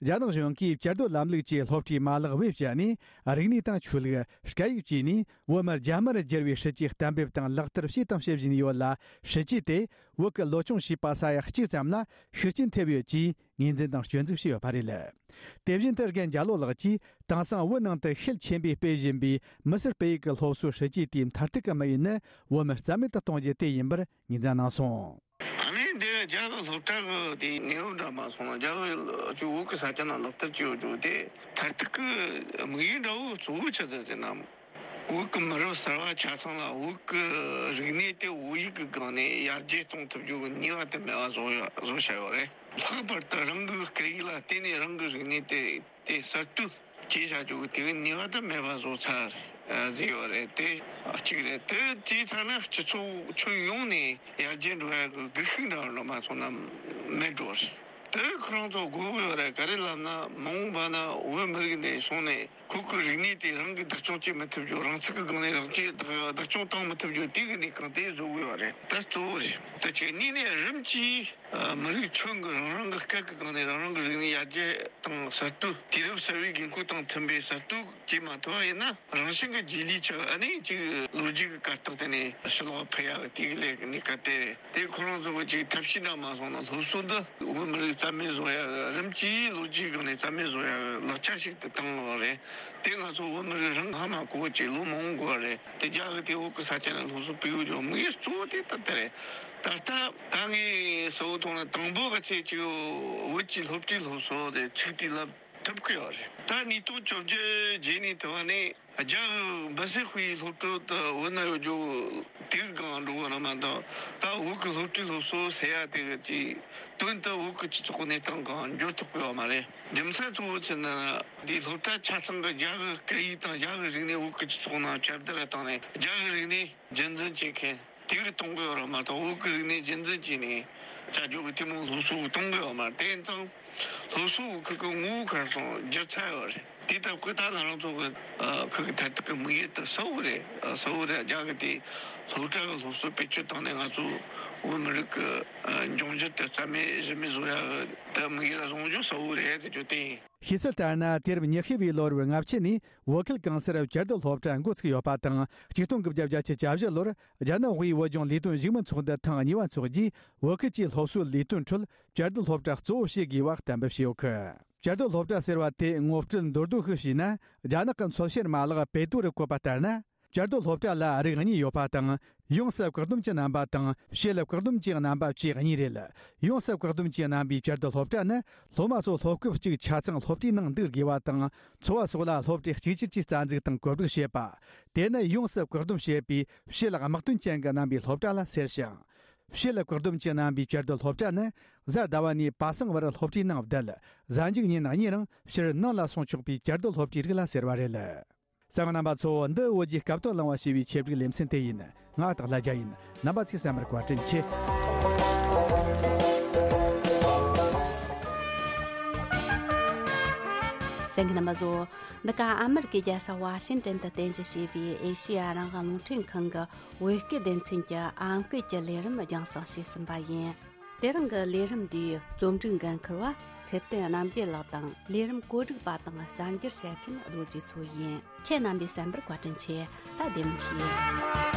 རྒྱ་ནག་གཞུང་གིས་བཅའ་སྡོད་ལམ་ལུགས་ཀྱི་སློབ་གྲྭའི་མ་ལག་བེད་སྤྱད་ནས། རིག་གནས་དང་ཆོས་ལུགས། སྐད་ཡིག་བཅས་ནས་བོད་མི་རྒྱ་དམར་བསྒྱུར་བའི་སྲིད་ཇུས་གཏན་འབེབས་དང་ལག་བསྟར་བྱས་དང་བྱེད་བཞིན་ཡོད་ལ། སྲིད་ཇུས་དེ་བོད་ཀྱི་ལོ་ཆུང་བྱིས་པ་ས་ཡ་གཅིག་ཙམ་ལ་ཤུགས་རྐྱེན་ཐེབས་ཡོད་ཅེས་ངོས་འཛིན་དང་སྐྱོན་འཛུགས་བྱས་ཡོད་པ་རེད། དེ་བཞིན་དུ་རྒན་རྒྱ་ལོ་ལགས་ཀྱིས། དེང་སང་བོད་ནང་དུ་ཤེད་ཆེན་པོས་སྤེལ་བཞིན་པའི་མི་སེར་སྤེལ་ཡུལ་གྱི་སློབ་གསོའི་སྲིད་ཇུས་དེའི་མཐར་ཐུག་གི་དམིགས་ཡུལ་ནི་བོད་མི་རྩ་མེད་དུ་གཏོང་རྒྱུ་དེ་ཡིན་པར་ངོས་འཛིན་གནང་སོང་། ཨ་ནི་འདི་རྒྱ་གི་སློབ་གྲྭ་གི་དེའི་གནས་བབ་འདྲ་མ་སོང་ན། རྒྱ་གི་ཅིག་བོད་གི་ས་ཆ་ནང་ལག་བསྟར་བྱས་ཡོད་རྒྱུ་དེ་མཐར་ཐུག་གི་དམིགས་ཡུལ་འདྲ་བོ་གཙོ་བོ་ཆི་ཟིག་ཟེར་ན། བོད་གི་མི་རབས་གསར་བ་ཆ་ཚང་ལ་བོད་གི་རིག་གནས་དེ་བོད་ཡིག་གི་སྒང་ནས་ཡར་རྒྱས་གཏོང་ཐུབ་རྒྱུ་གི་ནུས་པ་དེ་མེད་པ་བཟོ་ཡ་བཟོ་བྱ་ཡོད་རེད། ལྷག་པར་དུ་རང་གི་སྐད་ཡིག་ལ་བརྟེན་ནས་རང་གི་རིག་གནས་དེ་དེ་གསར་གཏོད་བྱེད་བྱ་རྒྱུ་གི་དེ་གི་ནུས་པ་དེ་མེད་པ་བཟོ་ཚར་ཟིག་ཡོད་རེད། དེ་གཅིག་རེད། དེ་བྱས་ཚར་ན་སྤྱི་ཚོགས་ཁྱོན་ཡོངས་ནས་ཡར་རྒྱས་འགྲོ་ཡ་གི་སྒུལ་ཤུགས་འདྲ་བོ་མ་སོང་ན་མེད་འགྲོ་རེད། དེ་ཁོ་རང་ཚོ་དགོས་གི་ཡོད་རེད། ག་རེ་ལབ་ན་མ་འོངས་པ་ན་བོད་མི་རིགས་འདི་སོང་ནས་ཁོ་གི་རིག་གནས་དེ་རང་གིས་བདག་སྐྱོང་བྱེད་མི་ཐུབ་རྒྱུ། རང་ཚུགས་ཀྱི་སྒང་ནས་རང་གིས་བདག་བདག་སྐྱོང་བཏང་མི་ཐུབ་རྒྱུ་དེ་གི་གནས་སྟངས་དེ་བཟོ་གི་ཡོད་རེད། དེ་གཙོ་བོ་རེད། དེ་བྱས་ནས་ནས་རིམ་གྱིས་མི་རིགས་ཁྱོན་གྱི་རང་རང་གི་སྐད་ཀྱི་སྒང་ནས་རང་རང་གི་རིག་གནས་ཡར་རྒྱས་དང་གསར་གཏོད། དུས་རབས་གསར་བའི་དགོས་མཁོ་དང་མཐུན་པའི་གསར་གཏོད་བྱེད་མ་ཐུབ་པ་ཡིན་ན། རང་བཞིན་གྱི་རྗེས་ལུས་ཆགས། ཨ་ནི་ཅིག་ལོ་རྒྱུས་ཀྱི་གར་སྟེགས་དེ་ནས་ཕྱི་ལོགས་ཕུད་ཡ་གི་དེ་གི་ལས་ཀྱི་གནས་སྐབས་དེ་རེད། དེ་ཁོ་རང་ཚོ་གི་ཅིག་ཐབས་ཤེས་འདྲ་མ་སོང་ན་སློབ་གསོ་འདི་བོད་མི་རིགས་རྩ་མེད་བཟོ་ཡ་གི་རིམ་གྱིས་ལོ་རྒྱུས་སྒང་ནས་རྩ་མེད་བཟོ་ཡ་གི་ལག་ཆ་ཞིག་ཏུ་བཏང་ཡོད་རེད། དེ་ང་ཚོ་བོད་མི་རིགས་རང་ཧ་མ་གོ་བ་ཅིག་ལོ་མང་པོ་འགོར་བ་རེད། དེ་རྒྱ་གི་དེ་བོད་གི་ས་ཆ་ནས་སློབ་གསོ་སྤེལ་ཡོད་ཀྱང་དམིགས་ཡུལ་གཙོ་བོ་དེ་ད་ལྟ་རེད། ད་ལྟ་ད་ངས་གསལ་བོ་མཐོང་ན་དང་པོ་གི་ཚེ་ཅིག་བོད་ཀྱི་སློབ་གྲྭའི་སློབ་གསོ་དེ་ཚུགས་དུས་ལ་ཐུབ་ཀྱི་ཡོད་རེད། ད་ཉིས་སྟོང་བཅོ་བརྒྱད་རྗེས་ནས་དུ་བ་ནས་རྒྱ་གི་འབུ་སྲིན་དཔེའི་སློབ་གྲྭ་དུ་བོད་ན་ཡོད་རྒྱུ་དེ་གི་སྒང་འགྲོ་གི་རེད་མ་གཏོགས། ད་བོད་ཀྱི་སློབ་གྲྭའི་སློབ་གསོ་ཟེར་ཡ་དེ་གི་ཅིག་དོན་དུ་བོད་ཀྱི་སྤྱི་ཚོགས་གནས་སྟངས་སྒང་འགྱུར་ཐུབ་ཀྱི་ཡོད་མ་རེད། རྒྱུ་མཚན་གཙོ་བོ་ཆི་ཟེར་ན། འདིའི་སློབ་གྲྭ་ཆ་ཚང་གི་རྒྱ་གི་སྐད་ཡིག་དང་རྒྱ་གི་རིག་གནས་བོད་ཀྱི་སྤྱི་ཚོགས་ནང་ཁྱབ་གདལ་བཏང་ནས་རྒྱ་གི་རིག་གནས་རྒྱུན་འཛིན་བྱེད་མཁན་དེ་གི་གཏོང་གི་ཡོད་རེད་མ་གཏོགས། བོད་ཀྱི་རིག་གནས་རྒྱུན་འཛིན་བྱས་ནས་བྱ་རྒྱུ་གི་དེ་མོ་སློབ་གསོ་གཏོང་གི་ཡོད་མ་རེད། དེ་ཡིན་ཙང་སློབ་གསོ་གི་ཁུལ་གི་ངོ་བོ་ག་རེ་སོང་བསྒྱུར་ཚར་ཡོད་རེད། དེ་ལྟ་བུ་ད་ང་རང་ཚོ་གི་ཁུལ་གི་མཐར་ཐུག་གི་དམིགས་ཡུལ་དེ་གསལ་བོ་རེད། གསལ་བོ་རེད། རྒྱ་གི་དེ་སློབ་གྲྭ་གི་སློབ་གསོ་བེད་སྤྱོད་བཏང་ནས་ང་ཚོ་བོད་མི་རིགས་གི་འབྱུང་འགྱུར་དེ་རྩ་མེད་གཞི་མེད་བཟོ་ཡ་གི་དེ་དམིགས་ཡུལ་བཟུང་རྒྱུ་གསལ་བོ་རེད་ཟེར་རྒྱུ་དེ་ཡིན། ཤེས་གསལ་ལྟར་ན། དུས་རབས་ཉི་ཤུ་བའི་ལོ་རབས་ལྔ་བཅུ་ནས་བོད་ཁུལ་གང་སར་བཅའ་སྡོད་སློབ་གྲྭ་འགོ་ཚུགས་ཡོད་པ་དང་། ཆིག་སྟོང་དགུ་བརྒྱ་བརྒྱད་ཅུ་གྱ་བཞི་ལོར་རྒྱ་ནག་དབུས་བོད་ལྗོངས་ལས་དོན་བཞུགས་མོལ་ཚོགས་འདུ་ཐེངས་གཉིས་པ་འཚོགས་རྗེས། བོད་ཁུལ་གྱི་སློབ་གསོའི་ལས་དོན་ཁྲོད་བཅའ་སྡོད་སློབ་གྲྭ་གཙོ་བོ་བྱེད་དགོས་པ་གཏན་འབེབས་བྱས་ཡོད་གི། བཅའ་སྡོད་སློབ་གྲྭ་ཟེར་བ་དེ་ངོ་སྤྲོད་མདོར་བསྡུས་ཤིག་བྱས་ན། རྒྱ་ནག་གི་འཚོལ་བཤེར་མ་ལག་པེ་ཏུ་རུ་བཀོད་པ་ལྟར་ན། བཅའ་སྡོད་སློབ་གྲྭ་ལ་རིགས་གཉིས་ཡོད་པ་དང་། ཡོངས་སུ་བཀག་སྡོམ་གྱི་རྣམ་པ་དང་། ཕྱེད་ལ་བཀག་སྡོམ་གྱི་རྣམ་པ་བཅས་གཉིས་རེད། ཡོངས་སུ་བཀག་སྡོམ་གྱི་རྣམ་པའི་བཅའ་སྡོད་སློབ་གྲྭ་ནི། སློབ་མ་ཚོ་སློབ་སྐབས་གཅིག་ཆ་ཚང་སློབ་གྲྭའི་ནང་འདུག་དགོས་པ་དང་། འཚོ་བ་སོགས་ལ་སློབ་གྲྭས་གཅིག་གྱུར་གྱིས་རྩ་འཛུགས་དང་བཀོད་སྒྲིག་བྱེད་པ། དེ་ནི་ཡོངས་སུ་བཀག་སྡོམ་བྱེད་པའི་ཕྱེད་ལ་དམག་དོན་ཅན་གྱི་རྣམ་པའི་སློབ་གྲྭ་ལ་ཟེར་ཞིང་། ཕྱེད་ལ་བཀག་སྡོམ་གྱི་རྣམ་པའི་བཅའ་སྡོད་སློབ་གྲྭ་ནི། གཟའ་ཟླ་བ་ནས་པ་སངས་བར་སློབ་གྲྭའི་ནང་བསྡད། གཟའ་མཇུག་ཉིན་གཉིད་རིང་ཕྱིར་ནང་ལ་སོང་ཆོག་པའི་བཅའ་སྡོད་སློབ་གྲྭའི་རིགས་ལ་ཟེར་བ་རེད། གསན་མཁན་རྣམ་པ་ཚོ། འདི་བོད་ཀྱི་སྐབས་དོན་གླེང་བ་ཞེས་པའི་ཆེད་སྒྲིག་ལེ་ཚན་དེ་ཡིན། ང་སྟག་ལྷ་རྒྱལ་ཡིན། རྣམ་པ་ཚོས་གསན་པར་བཀའ་དྲིན་ཆེ། གསན་མཁན་རྣམ་པ་ཚོ། འདི་ག་ཨ་མེ་རི་ཀའི་རྒྱལ་ས་ཝ་ཤིང་ཏན་དུ་རྟེན་གཞི་བྱས་པའི་ཨེ་ཤེ་ཡ་རང་དབང་རླུང་འཕྲིན་ཁང་གི་བོད་སྐད་སྡེ་ཚན་གྱི་ཨམ་སྐད་ཀྱི་ལས་རིམ་རྒྱང་སྲིང་བྱས་ཟིན་པ་ཡིན། དེ་རིང་གི་ལས་རིམ་འདིའི་རྩོམ་སྒྲིག་འགན་འཁུར་བ་ཚེ་བརྟན་རྣམ་རྒྱལ་ལགས་དང་། ལས་རིམ་བཀོད་སྒྲིག་པ་དང་གསར་འགྱུར་བཤད་མཁན་རྡོ་རྗེ་མཚོ་ཡིན། ཁྱེད་རྣམ་པས་གསན་པར་བཀའ་དྲིན་ཆེ། ད་བདེ་མོ་བྱོས།